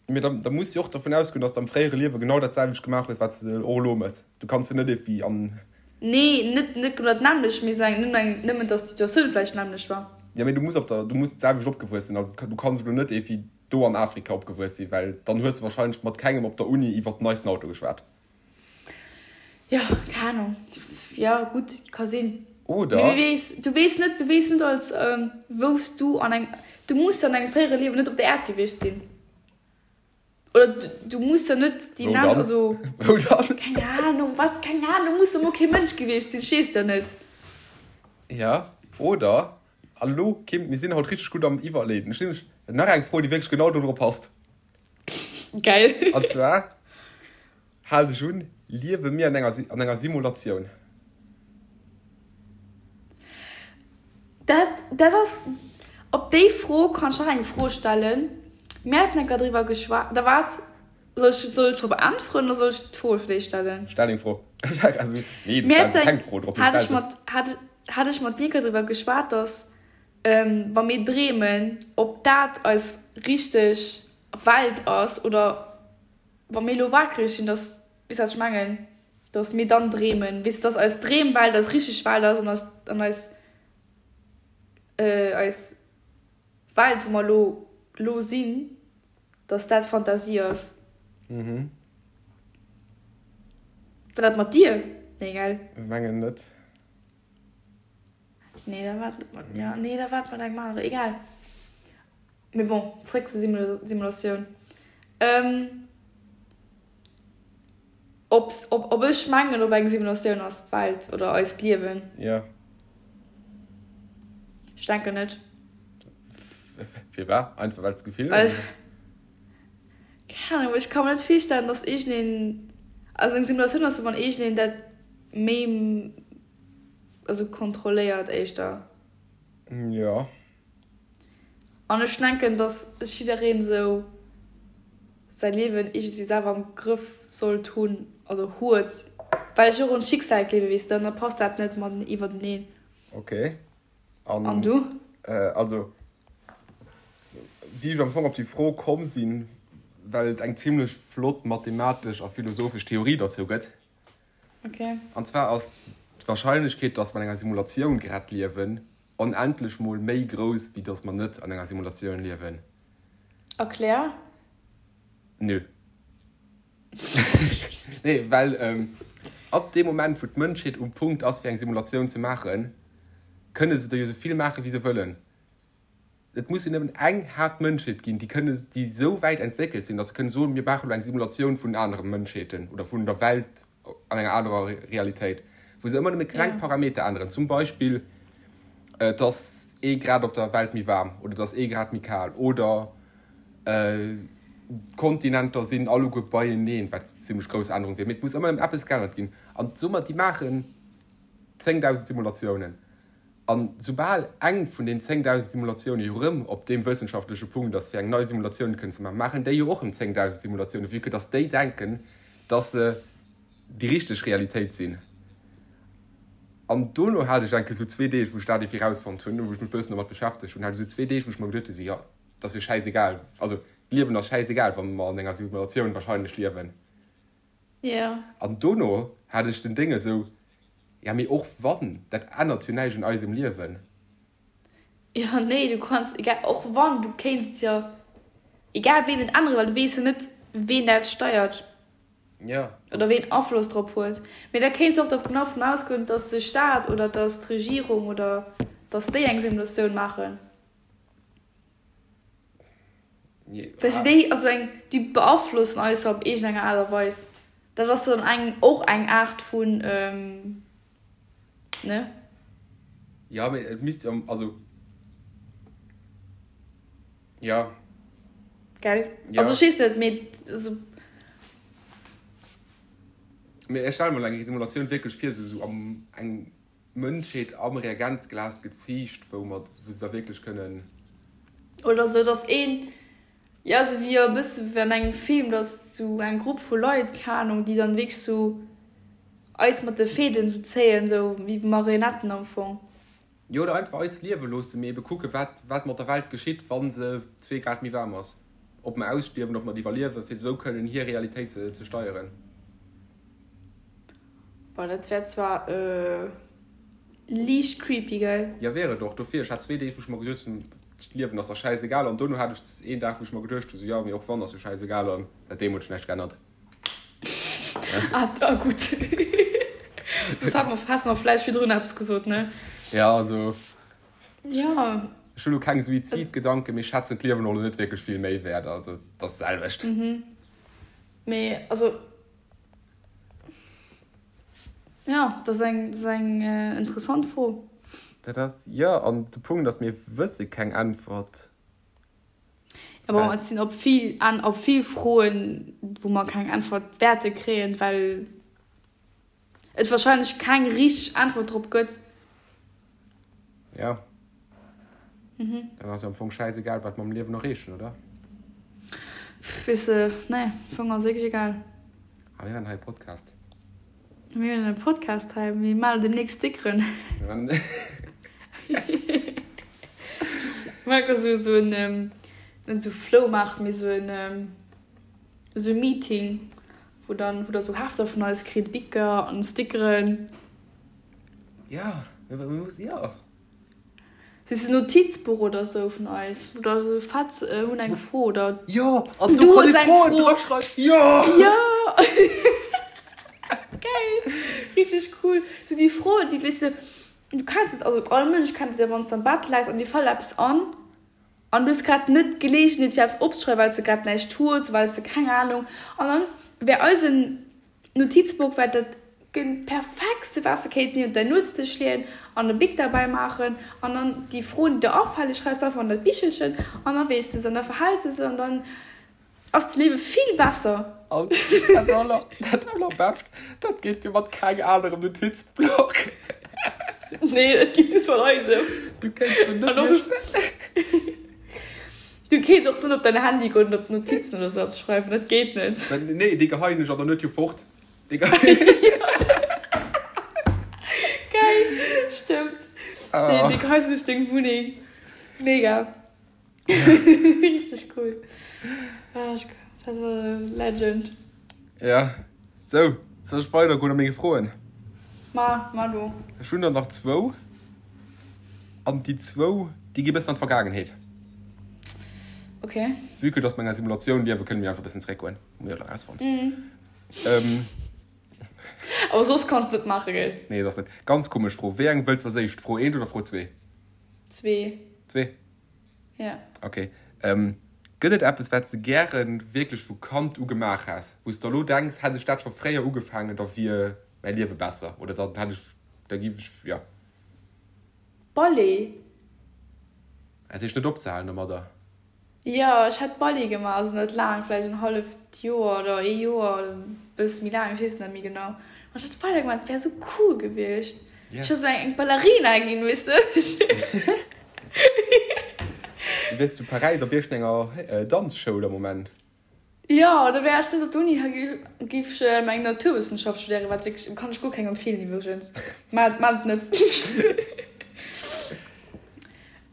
Mee da, da muss de och dervun ausgoen, dass de am fréiere Liewe genau dat selwecht gemaach hues, wat s de och elo méchs. Du kanns jo net iergendwéi an. Nee, net, net genau dat nämmlecht, mee esou eng, nëmmen eng, nëmmen dass d'Situatioun vläicht d'nämmlecht war. Jo, mee du muss op der, du muss d'selwecht opgewuess sinn. Also du kanns elo net iergendwéi do an Afrika opgewuess sinn, well dann hues de wahrscheinlech mat kengem op der Uni iwwert den neisten Auto geschwat. Jo, keng Ahnung. Jo, gutt, ka sinn. Oder. Mee wie weess, du weess net, du weess net als wou s du an engem, du muss jo an engem fréiere Liewen net op der Äerd gewiescht sinn. Oder du muss jo net déi Wou dann? also. Wou dann? Keng Ahnung, wat, keng Ahnung, muss jo mol kee Mënsch gewiescht sinn, ech weess jo net. Ja, oder, an elo, Kim, mir sinn haut richteg gutt am Iwwerleeden. Ech hunn nämlech nach eng Fro, déi wierklech genau do dru passt. Geil. An zwar, hal dech un, Liewe mir an enger, an enger Simulatioun? Dat, dat ass, op déi Fro kann ech nach eng Fro stellen. Mir haten enker driwwer geschwat, da waart, soll ech, soll ech drop äntweren oder soll ech d'Fro fir d'éischt stellen? Stell deng Fro. Also, nee, du stells keng Fro drop, mee Hat stell ech se. mat, hat, hat ech mat dir enker driwwer geschwat, dass wa mir dreemen, ob dat eis richteg Welt ass oder wa mir elo wakereg sinn, dass, weess wat ech mengen, dass mir dann dreemen, weess de, dass eis Dreemwelt eis richteg Welt ass an eis, an eis, eis Welt, wou mer elo, elo sinn, dass dat Fantasie ass. Mhm. War dat mat dir? Nee, gell? Mengen net. Nee, da war et mat, ja, nee, da war et mat engem aneren, egal. Mee bon, zréck zur Simulatioun. Ähm, ob's, ob, ob ech mengen, ob eng Simulatioun ass d'Welt oder eist Liewen? Ja. Ech denken net. Firwat? Einfach well s d'Gefill hues? Keng Ahnung, ech ka mer net virstellen, dass iergendeen, also eng Simulatioun ass jo, wann iergendeen dat méi also kontrolléiert éischter. Jo. An ech denken, dass jiddereen esou säi Liewen iergendwéi selwer am Grëff sollt hunn, also huet, well ech och un d'Schicksal gleewen, weess de, an da passt dat net mat iwwerteneen. Ok. An, an du? Also, wéi ech am Fong op déi Fro komm sinn, well et eng zimlech flott mathematesch a philosophesch Theorie derzou gëtt, Okay. An zwar ass d'Warscheinlechkeet, dass mer an enger Simulatioun grad liewen, onendlech mol méi grouss, wéi dass mer net an enger Simulatioun liewen. Erklär. Nö. Nee, well ab deem Moment, wou d'Mënschheet um Punkt ass, fir eng Simulatioun ze maachen, kënne se der jo sou vill maachen, wéi se wëllen. Et muss jo nëmmen eng haart Mënschheet ginn, déi kënne, déi esou wäit entwéckelt sinn, datt se kënne soen, mir maachen elo eng Simulatioun vun anere Mënschheeten oder vun der Welt an enger anerer Realitéit, wou se ëmmer nëmme kleng Parameter änneren, zum Beispill, et ass ee Grad op der Welt méi waarm oder et ass ee Grad méi kal oder. D'Kontinenter sinn alleguer beieneen, wat zimmlech grouss Ännerung wier. Mee et muss ëmmer erëm eppes geännert ginn. An soe mer, déi maachen 10.000 Simulatiounen. An soubal eng vun den 10.000 Simulatioune jo erëm op deem wëssenschaftleche Punkt ass, fir eng nei Simulatioun kënnen ze maachen, maachen déi jo och erëm 10.000 Simulatiounen, vue que dass déi denken, dass se déi richteg Realitéit sinn. An dono hat ech enke sou zwee Deeg, wou ech dat iergendwéi rausfonnt hunn, wou ech mech e bëssen domat beschäftegt hunn, hat ech sou zwee Deeg, wou ech mer geduet hunn, sou, jo, et ass jo schäisegal, also d'Liewen ass schäisegal, wa mer an enger Simulatioun wahrscheinlech liewen. Jo. An dono hat ech den Déng esou, Ja, mee och wann, dat ännert jo näischt un eisem Liewen. Jo, nee, du kanns, egal, och wann, du kéints jo egal ween net änneren, well du weess jo net, ween dat steiert. Jo. Oder ween Afloss drop huet. Mee da kéints och dervun davon ausgoen, dass de Staat oder dass d'Regierung oder dass déi eng Simulatioun maachen. Well se déi, also eng, déi beaflossen eis op iergendenger Aart a Weis. Dat ass dann eng, och eng Aart vun, ne? Jo, mee et misst jo, also, jo. Gell? Ja. Also ech weess net, mee also. Mee ech stelle mer elo eng Simulatioun wierklech vir, esou, esou am, eng Mënschheet am Reagenzglas geziicht, wou mer, wou se da wierklech kënnen. Oder sou, dass een, jo, sou wéi e bësse wéi an engem Film, dass sou eng Grupp vu Leit, keng Ahnung, déi dann wierklech sou eis mat de Fäden sou zéien, sou wéi Marionetten am Fong. Jo, oder einfach eis liewe loossen, mee ebe kucken, wat, wat mat der Welt geschitt, wa se zwee Grad méi waarm ass. Ob mer ausstierwen, ob mer et iwwerliewen, fir esou kënnen hir Realitéit ze, ze steieren. Boah, dat wär zwar liicht creepy, gell? Jo, wier et och. Dofir, ech hat zwee Deeg, wou ech mer geduecht hunn, d'Liewen ass der schäisegal. An dono hat ech een Dag, wou ech mer geduecht hunn, sou, jo, mee och wann, ass jo schäisegal. An säit deem huet sech näischt geännert. Ah, da gutt. Soss hat mer, häss mer vläicht virdrun eppes gesot, ne? Ja, also. Ja. Ech hunn elo keng Suizidgedanken, mee ech schätzen d'Liewen och elo net wierklech vill méi wäert. Also, et ass d'selwecht. Mee, also. Jo, dat ass eng, dat ass eng interessant Fro. Dat ass, jo, an de Punkt ass, mir wësse keng Äntwert. Jo, bon, et sinn op vill, op vill Froen, wou mer keng Äntwert wäerte kréien, well et wahrscheinlech keng richteg Äntwert drop gëtt. Jo. Dann ass jo am Fong schäisegal, wat mer am Liewen erreechen, oder? Weess de, nee, am Fong ass et wierklech egal. A mir hunn hei e Podcast. Mir hunn e Podcast hei, mir maachen demnächst Stickeren. Mir maachen esou, esou en, net esou Floumaart, mee esou en, esou e Meeting, wou dann, wou der esou Hefter vun eis kritt, Bicker an Stickeren. Ja, mir mussen, jo. Si se Notizbuch oder sou vun eis oder sou fett hunn eng Fro oder Jo an do kann ee Froen draschreiwen jo jo geil richteg cool sou déi Froen déi weess de du kenns et also all Mënsch kennt et jo wann s de am Bett läis an dir fält eppes an an du hues grad net d'Geleegenheet fir eppes opzeschreiwen well s de grad näischt hues well s de keng Ahnung an dann wär eisen Notizbuch war dat perfektste wat s de kéint niewent däin Nuetsdësch leeën an e Bic derbäi maachen an dann déi Froen déi der afale schreifs de einfach an dat Bichelchen an da weess de se an da verhäls de se an dann ass d'Liewe vill besser. An dat aller, dat allerbescht, dat geet jo mat keng anerem Notizblock. Nee, dat geet just mat eisem. Du kéints do net méi. Du kéints och net op däin Handy goen an op d'Notizen oder sou eppes schreiwen, dat geet net. Nee, déi geheien ech an der Nuet jo fort. Déi Geil, stëmmt. Déi, déi geheis duerch deng Wunneng. Mega. Richteg cool. Ah, ech, dat war Legend. Ja, sou, soll ech weidergoen a menge Froen? Ma, ma du. Ech hunn der nach zwou. An déi zwou, déi gi bëssen an d'Vergaangenheet. Ok. Vue que dass mer an enger Simulatioun liewen, kënne mir einfach bëssen zréckgoen. Hu mir jo elo erausfonnt. Awer soss kanns de net maachen, gell? Nee, soss net. Ganz komesch Fro. Wéi eng wëlls de als éischt? Fro eent oder Fro zwee? Zwee. Zwee? Ja. Ok. Gëtt et eppes, wat s de gären wierklech vu Kand u gemaach häss, wou s de elo denks, hätt ech dat scho fréier ugefaangen, da wier mäi Liewe besser oder dann hätt ech, da giff ech, jo. Ballet. Dat heescht net opzehalen domadder? Jo, ech hätt Ballet gemaach, also net laang, vläicht en halleft Joer oder ee Joer oder e bësse méi laang, ech weess et net méi genau. Mä ech hätt weider gemaach, et wär esou cool gewiescht. Ech wär esou eng Ballerina ginn, weess de. Du wiers zu Paräis op iergendenger Danzschoul am Moment. Jo, da wär ech net op der Uni, géif ech meng Naturwëssenschaft studéieren, wat wierklech, kann ech guer kengem empfeelen iwwregens, maacht et net.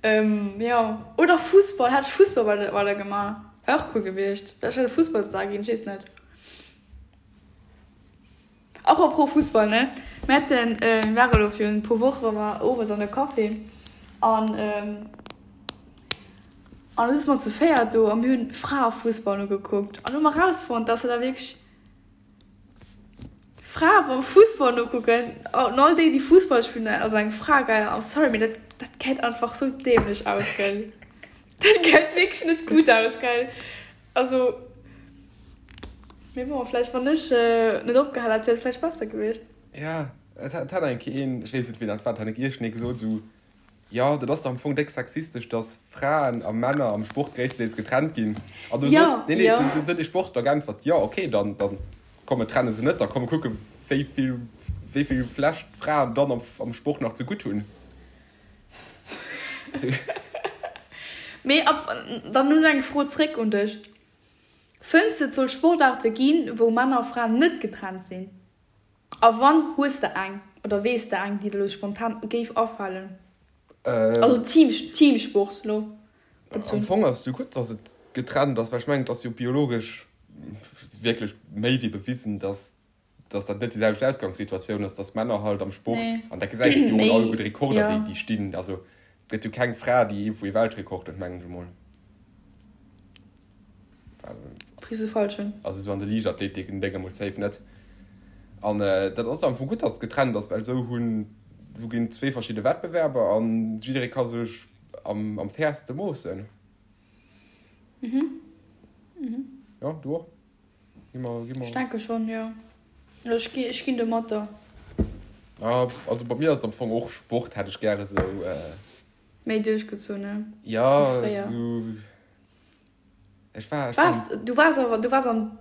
Jo, oder Fussball, hätt ech Fussball weider gemaach, wär och cool gewiescht, vläicht wär ech Fussballstar ginn, ech weess net. Apropos Fussball, ne, mir haten, mir ware lo virun e puer Woche ware mer owes an e Café an an du sinn mer zu véiert do a mir hunn Fraefussball nogekuckt an hu mer rausfonnt, dass se da wierklech Frae beim Fussball nokucken an all déi, déi Fussball spillen, also eng Fra, gell, I'm sorry, mee dat dat gesäit einfach sou dämlech aus, gell, dat gesäit wierklech net gutt aus, gell. Also, mee bon, vläicht wann ech net opgehal hätt, wier et vläicht besser gewiescht. Ja, et hat eng Kéier een, ech weess net wien dat war, et hat eng Kéier iergendee gesot esou, jo dat ass dach am Fong déck sexistesch, datt Fraen a Männer am Sport gréisstendeels getrennt ginn. An du sot, nee, nee, du huet ee Sportler geäntwert, jo okay, dann, dann komm mir trenne se net, da komm mir kucke wéi vill, wéi vill vlächtt d'Fraen dann am, am Sport nach zegutt hunn. Mee ab dann nun eng Fro zréck un dech, Fënns de et soll Sportaarte ginn, wou Männer a Fraen net getrennt sinn? A wann, hues de eng oder weess de eng, déi der elo spontan géif afalen? Also Team, Teamsport elo bezunn. Am Fong ass et jo gutt, datt et getrennt ass, well ech mengen, et ass jo biologesch wierklech méi wéi bewisen, datt dass dat net déi selwecht Ausgangssituatioun ass, dass Männer halt am Sport, an dat gesäit een jo och an all gudde Rekorder, déi déi stinn, also et gëtt jo keng Fra, déi iergendwou ee Weltrekord huet, mengen ech emol. Also esou an de Liichtathletik en Déng emol safe net. An dat ass am Fong gutt, dass et getrennt ass, well esou hunn, esou ginn et zwee verschidde Wettbewerber an jidderee ka sech am am fairste moossen. Jo, du och? Gi mer, gi mer. Ech denke schonn, jo. Ech gi, ech ginn domatter. Ah, also bei mir ass et am Fong och Sport, hätt ech gäre sou. Méi duerchgezunn, ne? Ja, sou. Ech war, ech war. Waars, du waars awer, du waars am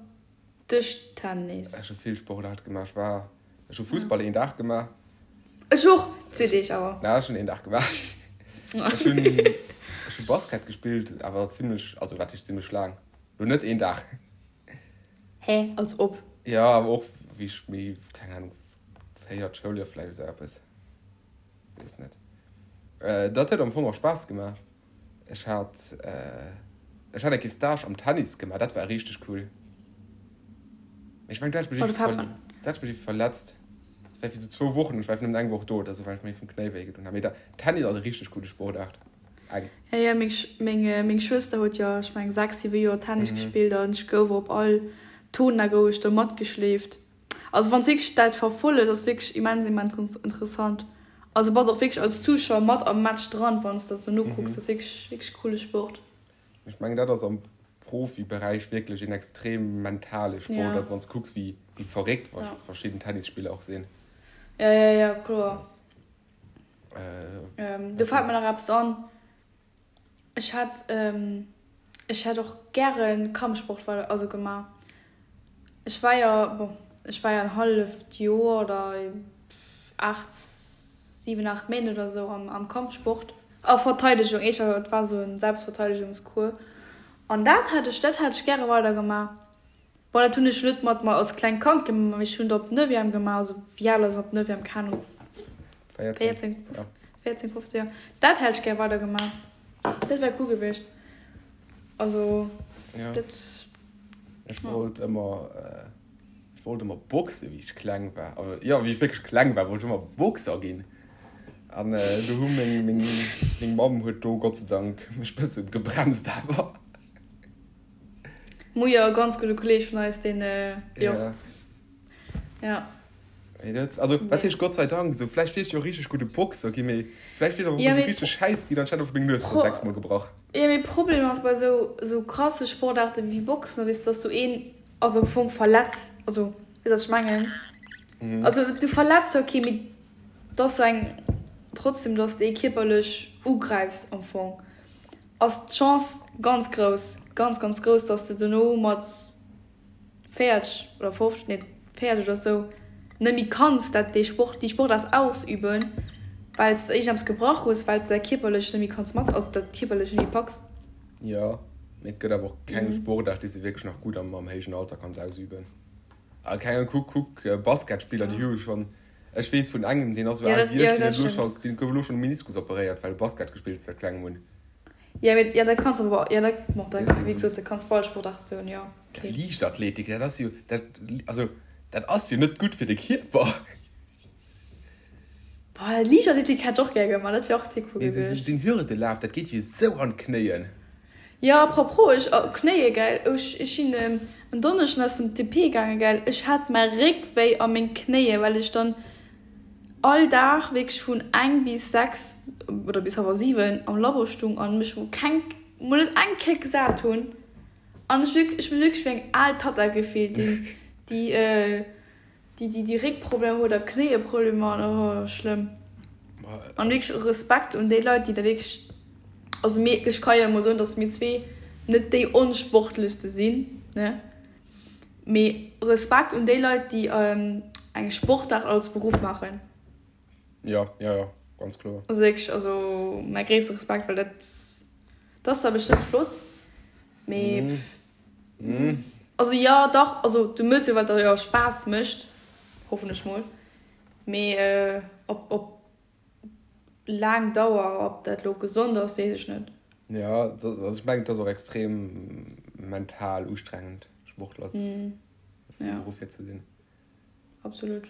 Dëschtennis. Ech hu vill Sportaarte gemaach. Ech war, ech hu Fussball een Dag gemaach. Ech och, zwee Deeg awer. Na, ech hunn een Dag gemaach. Ech hunn, ech hu Basket gespillt, awer zimlech, also wat heescht zimlech laang? Lo net een Dag. Hä, als ob? Jo, awer och wéi ech méi, keng Ahnung, véiert Schouljoer vläicht esou eppes, weess net. Dat huet am Fong och Spaass gemaach. Ech hat, ech hat eng Kéier Stage am Tennis gemaach, dat war richteg cool. Mee ech mengen, do hat ech mech iergendwéi, do hat ech mech iergendwéi verletzt. Dat war fir esou zwou Wochen, ech war einfach nëmmen eng Woch do oder esou, well ech mir vum Knéi wéi gedoen hat. Mee Tennis ass e richteg coole Sportaart. Eng. Ja, ja, meng, meng, meng Schwëster huet jo, ech meng, 6, 7 Joer Tennis gespillt an ech gouf op all Tournoi gouf ech do matgeschleeft. Also wann s wierklech dat verfollegt, ass wierklech immens, immens interessant. Also bass och wierklech als Zuschauer mat am Match dran, wann s dat sou nokucks. Dat ass wierklech, wierklech coole Sport. Ech mengen dat ass am Profiberäich wierklech een extrem mentale Sport, also wann s kucks wéi, wéi verréckt verschidden Tennisspiller och sinn. Ja, ja, ja, kloer. Do fält mir nach eppes an, Ech hätt, ech hätt och gäre Kampfsport weider, also gemaach. Ech war jo, bon, ech war jo en halleft Joer oder 8, 7, 8 Méint oder sou am Kampfsport, a Verteidegung, éischter, et war sou e Selbstverteidigungscours. An dat hätt ech, dat hätt ech gäre weider gemaach. Bon, dat hunn ech net mat mer als klengt Kand gemaach, mee ech hunn et op Neuvième gemaach, also wéi al ass een op Neuvième, keng Ahnung, 14, 14, 15 Joer. Dat hätt ech gär weider gemaach, dat wär cool gewiescht. Also dat. Ech wollt ëmmer, ech wollt ëmmer boxe wéi ech kleng war, also jo wéi ech wierklech kleng war, wollt ech ëmmer Boxer ginn. An do hu meng, meng, meng Mamm huet do Gott sei Dank mech bësse gebremst awer. Mujer, e ganz gudde Kolleg vun eis, deen, jo. Ja. Mee dat, also, wat heescht Gott sei Dank? Esou, vläicht wier ech jo e richteg gudde Boxer ginn, mee vläicht wier ech och esou richteg schäiss ginn an ech hätt einfach meng Nues scho sechsmol gebrach. Jo, mee Problem ass bei esou, esou krasse Sportaarte wéi Boxen, weess, dass du een, also am Fong verletz, also, weess wat ech mengen? Also, du verletz zwar kee, mee et ass eng, trotzdem, dass de ee kierperlech ugräifs am Fong. Ass d'Chance ganz grouss, ganz ganz grouss, dass de dono mat 40 oder 50, nee 40 oder sou, net méi kanns dat dee Sport, déi Sportaart ausüben, well s de iergendeppes gebrach hues, well s de dat kierperlech net méi kanns mat, also dat kierperlech net méi packs. Jo, mee et gëtt awer och keng Sportaart, déi s de wierklech nach gutt am héijen Alter kanns ausüben. A keng Ahnung, kuck, kuck Basketspiller, déi hu schonn, ech weess vun engem, deen ass esou al wéi ech, deen huet elo scho, deen gouf elo schonn um Meniskus operéiert, well e Basket gespillt huet säit klengem un. Jo, mee, jo, dat kanns awer, jo, dat, bon, dat, wéi gesot, dat kanns bei all Sportaart soen, jo, okay. Liichtathletik, dat ass jo, dat, also, dat ass jo net gutt fir de Kierper. Boah, Liichtathletik hätt ech och gär gemaach, dat wär och cool gewiescht. Esou en Hürdelaf, dat geet jo esou an d'Knéien. Jo, à propos, ech, oh, Knéie, gell, ech, ech sinn en Donneschden aus dem TP gaangen, gell, ech hat mäi Réck wéi a meng Knéie, well ech dann all Dag wierklech vun eng bis 6 oder bis hallwer 7 am Labo stung an mech mol keng, mol net eng Kéier gesat hunn an ech wierklech, ech mech wierklech wéi eng al Tatta gefillt, déi, déi, Déi déi Réckproblemer huet a Knéieproblemer an oh schlëmm. An wierklech Respekt un déi Leit déi da wierklech, also mir, ech ka jo emol soen dass mir zwee net déi onsportlechste sinn ne, mee Respekt un déi Leit déi eng Sportaart als Beruff maachen. Jo jo jo ganz kloer. Also wierklech, also mäi gréisste Respekt, well dat dat ass da bestëmmt flott, mee. Also jo dach, also du mëss jo wat der jo Spaass mécht, hoffen ech mol, mee op op laang Dauer ob dat lo gesond ass weess ech net. Jo also ech mengen et ass och extrem mental ustrengend Sportler vum Beruff hier ze sinn. Absolut.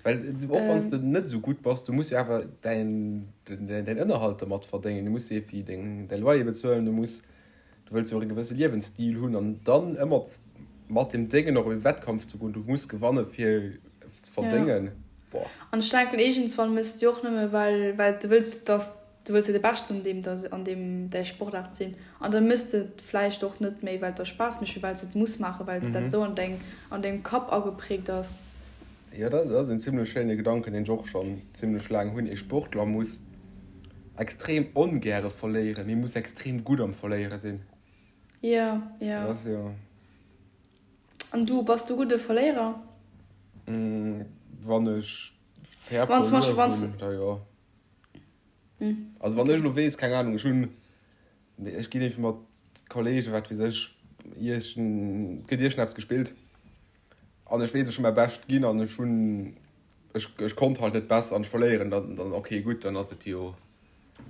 Well och wann s de net esou gutt bass, du muss jo awer däin Ënnerhalt dermat verdéngen, du muss jo fir deng däi Loyer bezuelen, du muss, du wëlls jo och e gewësse Liewensstil hunn an dann ëmmer mat deem Déngen och op e Wettkampf ze goen, du muss gewanne fir ze verdéngen, boah. An ech denken iergendswann méchs de jo och nëmme well well de wëlls, dass Du wëlls jo de Beschten an deem an deem däi Sportaart sinn an da méchs de et vläicht och net méi well et der Spaass mécht, mee well s de et muss maachen, well dat esou an deng an dengem Kapp agepräägt ass. Jo, dat ass en zimlech schéine Gedanken, deen ech och schonn zimlech laang hunn, Ee Sportler muss extrem ongäre verléieren, mee muss extrem gutt am Verléiere sinn. Jo, jo. Dat ass jo. An du, bass du gudde Verléierer? Wann ech fair verluer hunn, da jo. Also wann ech elo weess, keng Ahnung, ech hunn, ech ginn iergendwéi mat Kollegen, wat weess ech, iergend, et gëtt iergendeppes gespillt an ech weess, ech hu mäi Bescht ginn an ech hunn, ech, ech konnt halt net besser an ech verléieren, dann, dann okay, gutt, dann ass et jo,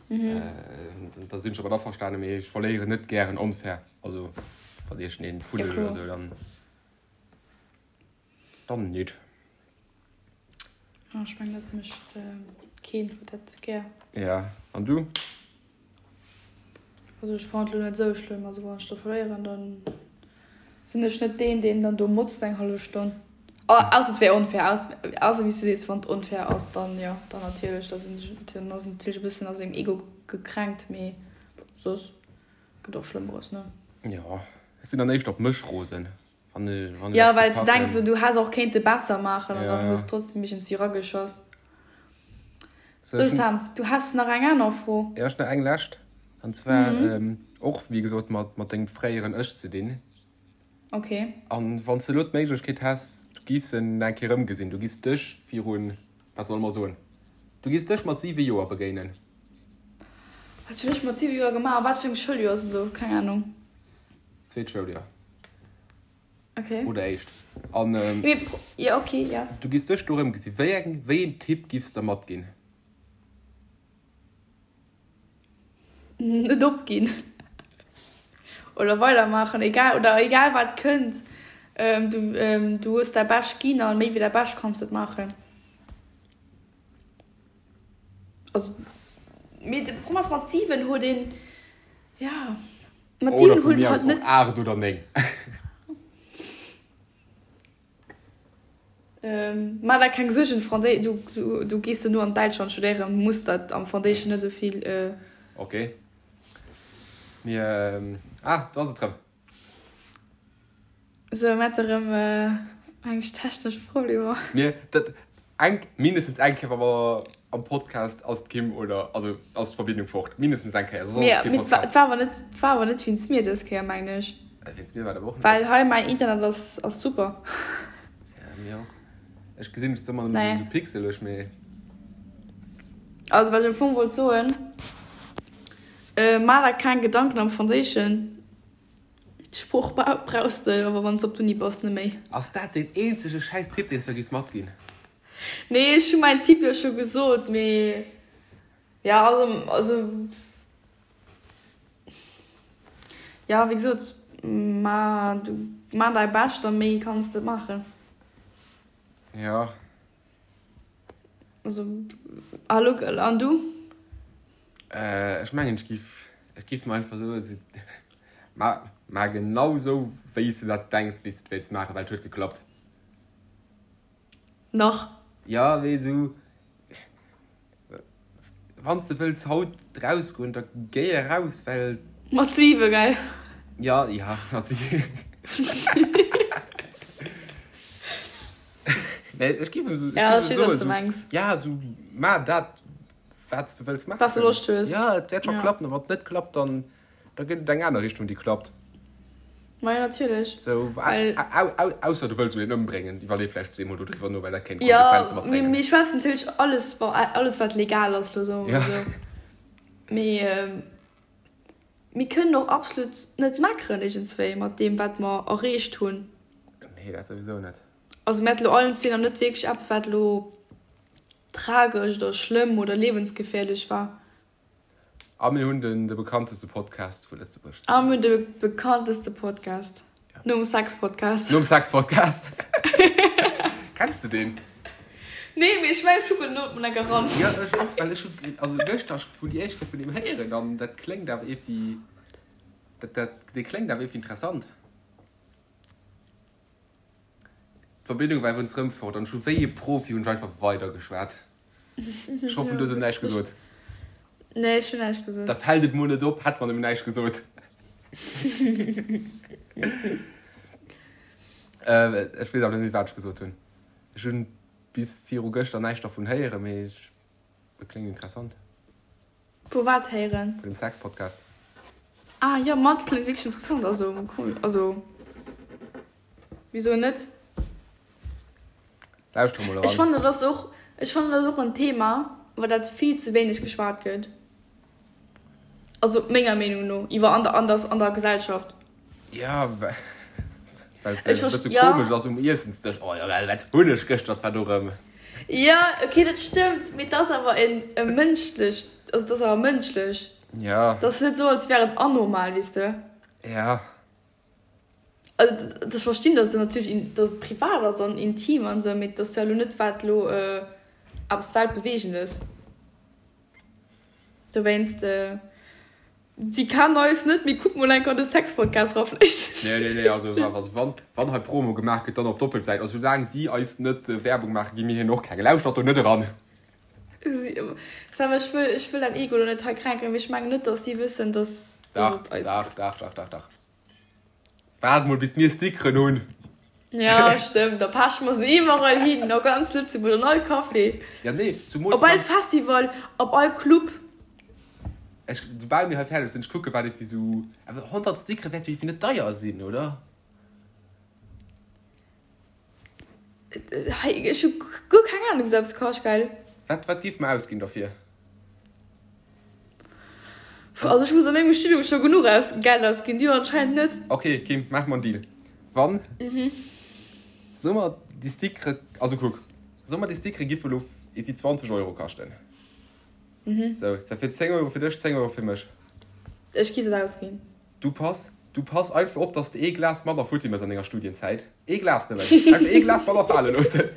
da sinn ech domat averstanen, mee ech verléieren net gären onfair, also wann iergendeen fuddelt oder esou, dann, dann nit. Ah, ech mengen dat mécht keen huet dat gär. Ja, an du? Also ech fannen et lo net esou schlëmm. Also wann ech do verléieren, dann sinn ech net deen, deen dann do motzt eng hallef Stonn. Ausser et wär onfair, ausser wéi s du sees, wann et onfair ass, dann jo, dann natierlech, da sinn ech, dann ass en natierlech e bëssen a sengem Ego gekränkt, mee soss gëtt och Schlëmmeres, ne? Jo, ech sinn dann éischter op mech rosen. Jo, well s de denks, du häss och kéinte besser maachen an dann hues de trotzdem iergendswéi rageschoss. Sou Sam, du häss nach eng aner Fro? Jo, ech nach eng lescht, an zwar och wéi gesot mat mat dengem fréieren Ech ze dinn. Ok. An wann s de elo d'Méiglechkeet häss, du giffs en eng Kéier erëmgesinn, du giffs dech virun, wat solle mer soen, du giffs dech mat 7 Joer begéinen. Wat hunn ech mat 7 Joer gemaach? A wat fir engem Schouljoer ass et elo? Keng Anung. Zweet Schouljoer. Okay. Oder éischt. An ähm, ja, okay, ja. Du giss dech do rëmgesinn. Wéi eng, wéi een Tipp giffs der matginn? Net opginn. Oder weidermaachen, egal, oder egal wat kënnt. Ähm, du, ähm, du hues däi Bescht ginn an méi wéi däi Bescht kanns net maachen. Also, mee de Problem ass, mat 7 huet een, ja. Mat Oder vu mir aus och 8 oder 9. Maach der keng Suergen, du gees duerno an Däitschland studéieren, muss dat am Foundation net esou vill. Ok. Mir, ah, do ass et rëm. Sou, mir hate rëm eng technesch Problemer. Mir, dat, eng, mindestens eng Kéier, wa mer. am Podcast ass d'Kim oder also ass d'Verbindung fort. Mindestens eng Kéier, soss ass et kee Podcast. Et war awer net, war awer net wéinst mir dës Kéier, mengen ech. Wéinst mir war et awer och net. Well hei mäin Internet ass, ass super. Ja, mir och. Ech gesinn dech zwar ëmmer nëmmen esou pixeleg, mee. Also wat ech am Fong wollt soen, Maach der keng Gedanken am Franséischen. D'Sprooch brauchs de awer wann s de op d'Uni bass net méi. Ass dat deen eenzege schäiss Tipp deen s de giss matginn? Nee, ech hu mäin Tipp jo scho gesot, mee jo, also, also jo, wéi gesot, ma du ma däi Bescht a méi kanns de net maachen. Jo. Also, hallo, an du? Ech mengen, ech giff, ech giff mer einfach soen, esou, ma, ma genau esou, wéi s de dat denks, wéi s de et wéilts maachen, well et huet geklappt. Nach. Jo, mee esou, wann s de wëlls haut rausgoen, da géi eraus, well. Mat 7, gell? Jo, jo, mat 7. Nee, ech giff esou, ech giff esou soen, esou, ja, esou, ma dat, wat s de wëlls maachen. Wat s de Loscht hues. Jo, et wäert scho klappen, a wann et net klappt, dann, da gëtt et eng aner Richtung, déi klappt. Ma jo, natierlech. Sou, ausser du wëlls elo een ëmbréngen, iwwerlee vläicht zweemol dodriwwer no, well dat kéint Konsequenze matbréngen. Jo, mee ech schwätzen natierlech alles, bon, alles wat legal ass, elo soe mer mol esou. Mee mir kënnen och absolut net meckeren iergendswéi mat deem, wat mer erreecht hunn. Nee, dat souwisou net. Also mir haten elo allen zwee nach net wierklech eppes, wat elo tragesch oder schlëmm oder liewensgefährlech war. A mir hunn den de bekannteste Podcast vu Lëtzebuerg. A mir hunn de bekannteste Podcast. Ja. Nom Sex-Podcast. Nom Sex-Podcast. Kenns de deen? Nee, mee ech mengen, ech kucken elo mol enker ran. Ja, ech och, well ech hunn, also gëschter hunn déi éischt Kéier vun deem héieren an dat kléngt awer iergendwéi, dat, dat, dee kléngt awer iergendwéi interessant. D'Verbindung war iwwerens rëm fort an ech hu wéi e Profi hunn ech einfach weider geschwat. Ech hoffen du hues elo näischt gesot. Nee, ech hunn näischt gesot. Da fält et mol net op, hätt mer nëmmen näischt gesot. Ech weess awer net méi wat ech gesot hunn. Ech hunn bis viru gëschter näischt dervun héieren, mee et kléngt interessant. Vu wat héieren? Vun dem Sex-Podcast. Ah jo, ma dat kléngt wierklech interessant. Also cool, also wisou net? Lauschter mol eran. Ech fannen dat ass och, ech fannen dat ass och en Thema, iwwer dat vill ze wéineg geschwat gëtt. Also menger Meenung no, iwwer an der, an der, an der Gesellschaft. Ja, well well et e bësse komesch ass um Iessensdësch. Oh jo, well wat hunn ech gëschter zwar do rëm. Jo, ok, dat stëmmt, mee et ass awer en e mënschlecht, also et ass awer mënschlech. Ja. Et ass net esou, als wär et anormal, weess de. Ja. Also ech verstinn, dass et natierlech, dass et privat ass an intim an esou, mee et ass jo elo net wat elo eppes Weltbeweegendes. Dowéinst. Si kennen eis net, mee kuck mol enker an de Sex-Podcast ra vläicht. Nee, nee, nee, also wann, wann hei Promo gemaach gëtt, dann op Doppelsäit. Also soulaang si eis net Werbung maachen, gi mir hinnen och keng. Lauschtert do net eran! Sam, ech wëll, ech wëll däin Ego lo net hei kränken, mee ech mengen net, dass si wëssen, dass, dass et eis gëtt. Dach, dach, dach, dach, dach. Waart mol, bis mir Stickeren hunn. Ja, stëmmt, da peche mer se iwwerall hin, a ganz Lëtzebuerg, an all Café. Ja, nee, zumools Op all Festival, op all Club. Ech, soubal mir hei fäerdeg sinn, ech kucke wat iergendwéi sou, awer 100 Stickere wäerte jo iergendwéi net deier sinn, oder? Hei, ech hu guer keng Ahnung, wéi se eppes kascht, gell? Wat, wat géif mer ausginn derfir? Also ech muss a mengem Studium scho genuch aus Geld ausginn, du anscheinend net. Ok Kim, maache mer en Deal. Wann, soe mer déi Stickere, also kuck, soe mer déi Stickere giffe lo ewéi 20 Euro kaschten. Sou, dat wier 10 Euro fir dech, 10 Euro fir mech. Ech giff dat ausginn. Du pass, du pass einfach op, dass de ee Glas manner futti mëss an denger Studienzäit. Ee Glas nëmmen. Einfach ee Glas manner fale loossen.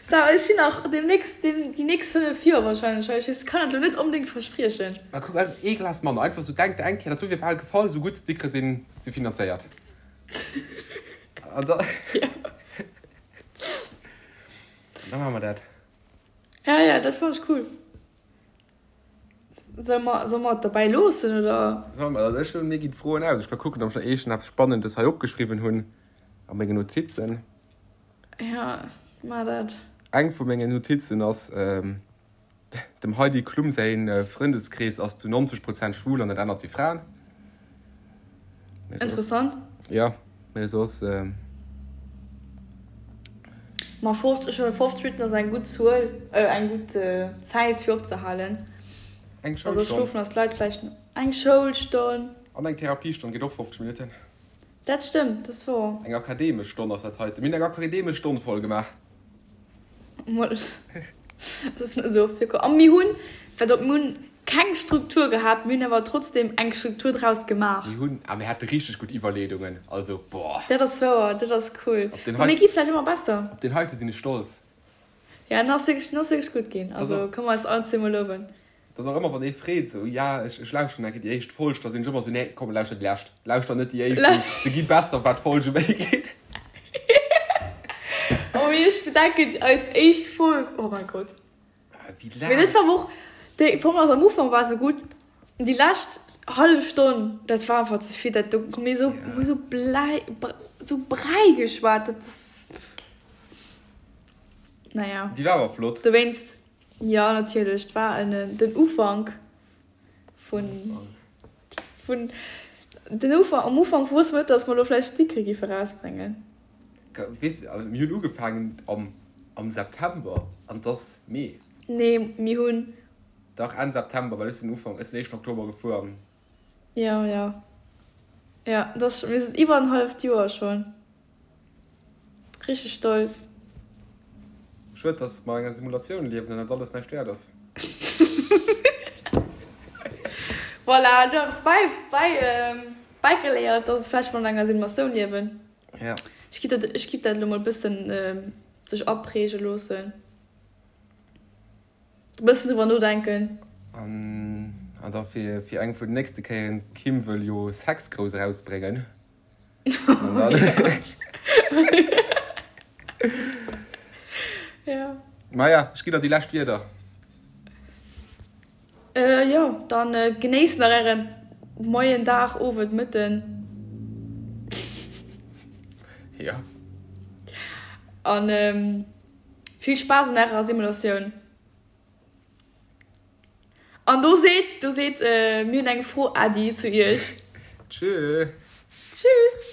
Sarah, ech sinn nach demnächst, déi nächst 5 Joer wahrscheinlech hei. Ech kann dat elo net onbedéngt verspriechen. Ma kuck, einfach ee Glas manner. Einfach sou, denk der eng Kéier, dat do wier bal gefall, sou gutt d'Stickere sinn, si finanzéiert. An da, da maache mer dat. Ja, ja, dat fannen ech cool. Solle mer, solle mer et derbäi loossen, oder? Solle mer? Also ech hunn, mir ginn d'Froen aus. Ech ka kucken, ob ech nach iergend eppes Spannendes hei opgeschriwwen hunn a mengen Notizen. Ja, maach dat. Eng vu mengen Notizen ass. Dem Heidi Klum säi Frëndeskrees ass zu 90 Prozent schwul an dat anert si Fraen. Interessant. Jo, mee soss. Ma 50, ech hunn 50 Minutten ass eng gutt Zuel, eng gutt Zäit fir opzehalen. Eng Schoulstonn. Also schlofen ass d'Leit vläicht eng Schoulstonn. An eng Therapiestonn geet och 50 Minutten. Dat stëmmt, dat ass wouer. Eng akademesch Stonn ass dat heiten. Mir hunn eng akademesch Stonn voll gemaach. Mol, dat ass net esou oft virkomm. A mir hunn, wat op, mir hunn keng Struktur gehat, mir hunn awer trotzdem eng Struktur draus gemaach. Mir hunn, a mir hate richteg gutt Iwwerleedungen, also boah. Dat ass wouer, dat ass cool. Op deen Mä mir gi vläicht ëmmer besser. Op deen heite sinn ech stolz. Ja, en ass wierklech, en ass wierklech gutt ginn. Also kënne mer eis allen zweemol luewen. Dat ass och ëmmer, wann ee freet, esou, ja, ech, ech lauschteren eng Kéier déi éischt Folg, da sinn ech ëmmer esou, nee, komm, lauschter déi lescht, lauschter net déi éischt, se, se gi besser, wat d'Folge méi ginn. Oh mee ech bedenken, eis éischt Folg, oh mein Gott. Wéi laang. Mee dat war awer och, déi Formel ass am Ufank war se gutt, déi lescht hallef Stonn, dat war einfach ze vill, dat do hu mir esou, hu esou Bläi, esou Bräi geschwat, dat ass, naja. Déi war awer flott. Dowéinst. Jo natierlech, et war en den Ufank vun vun den Ufank am Ufank wosste mer net dass mer elo vläicht Stickere giffe rausbréngen. Weess de, also mir hunn ugefaangen am am September an et ass Mee. Nee mir hunn. Dach Enn September, well ech sinn Ufank, ech sinn éischten Oktober gefuer an. Jo jo jo, et ass mir sinn iwwer en halleft Joer schonn. Richteg stolz. Schued dass mer an enger Simulatioun liewen an dat alles näischt wäert ass. Voilà, du hues bäi bäi bäigeléiert dass vläicht mer an enger Simulatioun liewen. Ja. Ech giff dat ech giff dat elo mol bëssen sech apräge loossen. E bëssen driwwer nodenken. An an da fir fir eng vun den nächste Kéieren, d'Kim wëll jo Sex grouss erausbréngen. Ja. Maja, ech ginn der déi lescht Wierder. Äh, jo, dann genéisst nach ären Moien, Dag, Owend, Mëtten. Ja. An vill Spaass an ärer Simulatioun. An do seet, do seet, mir hunn eng Fro, Äddi, zu iech. Tschö. Tschüss.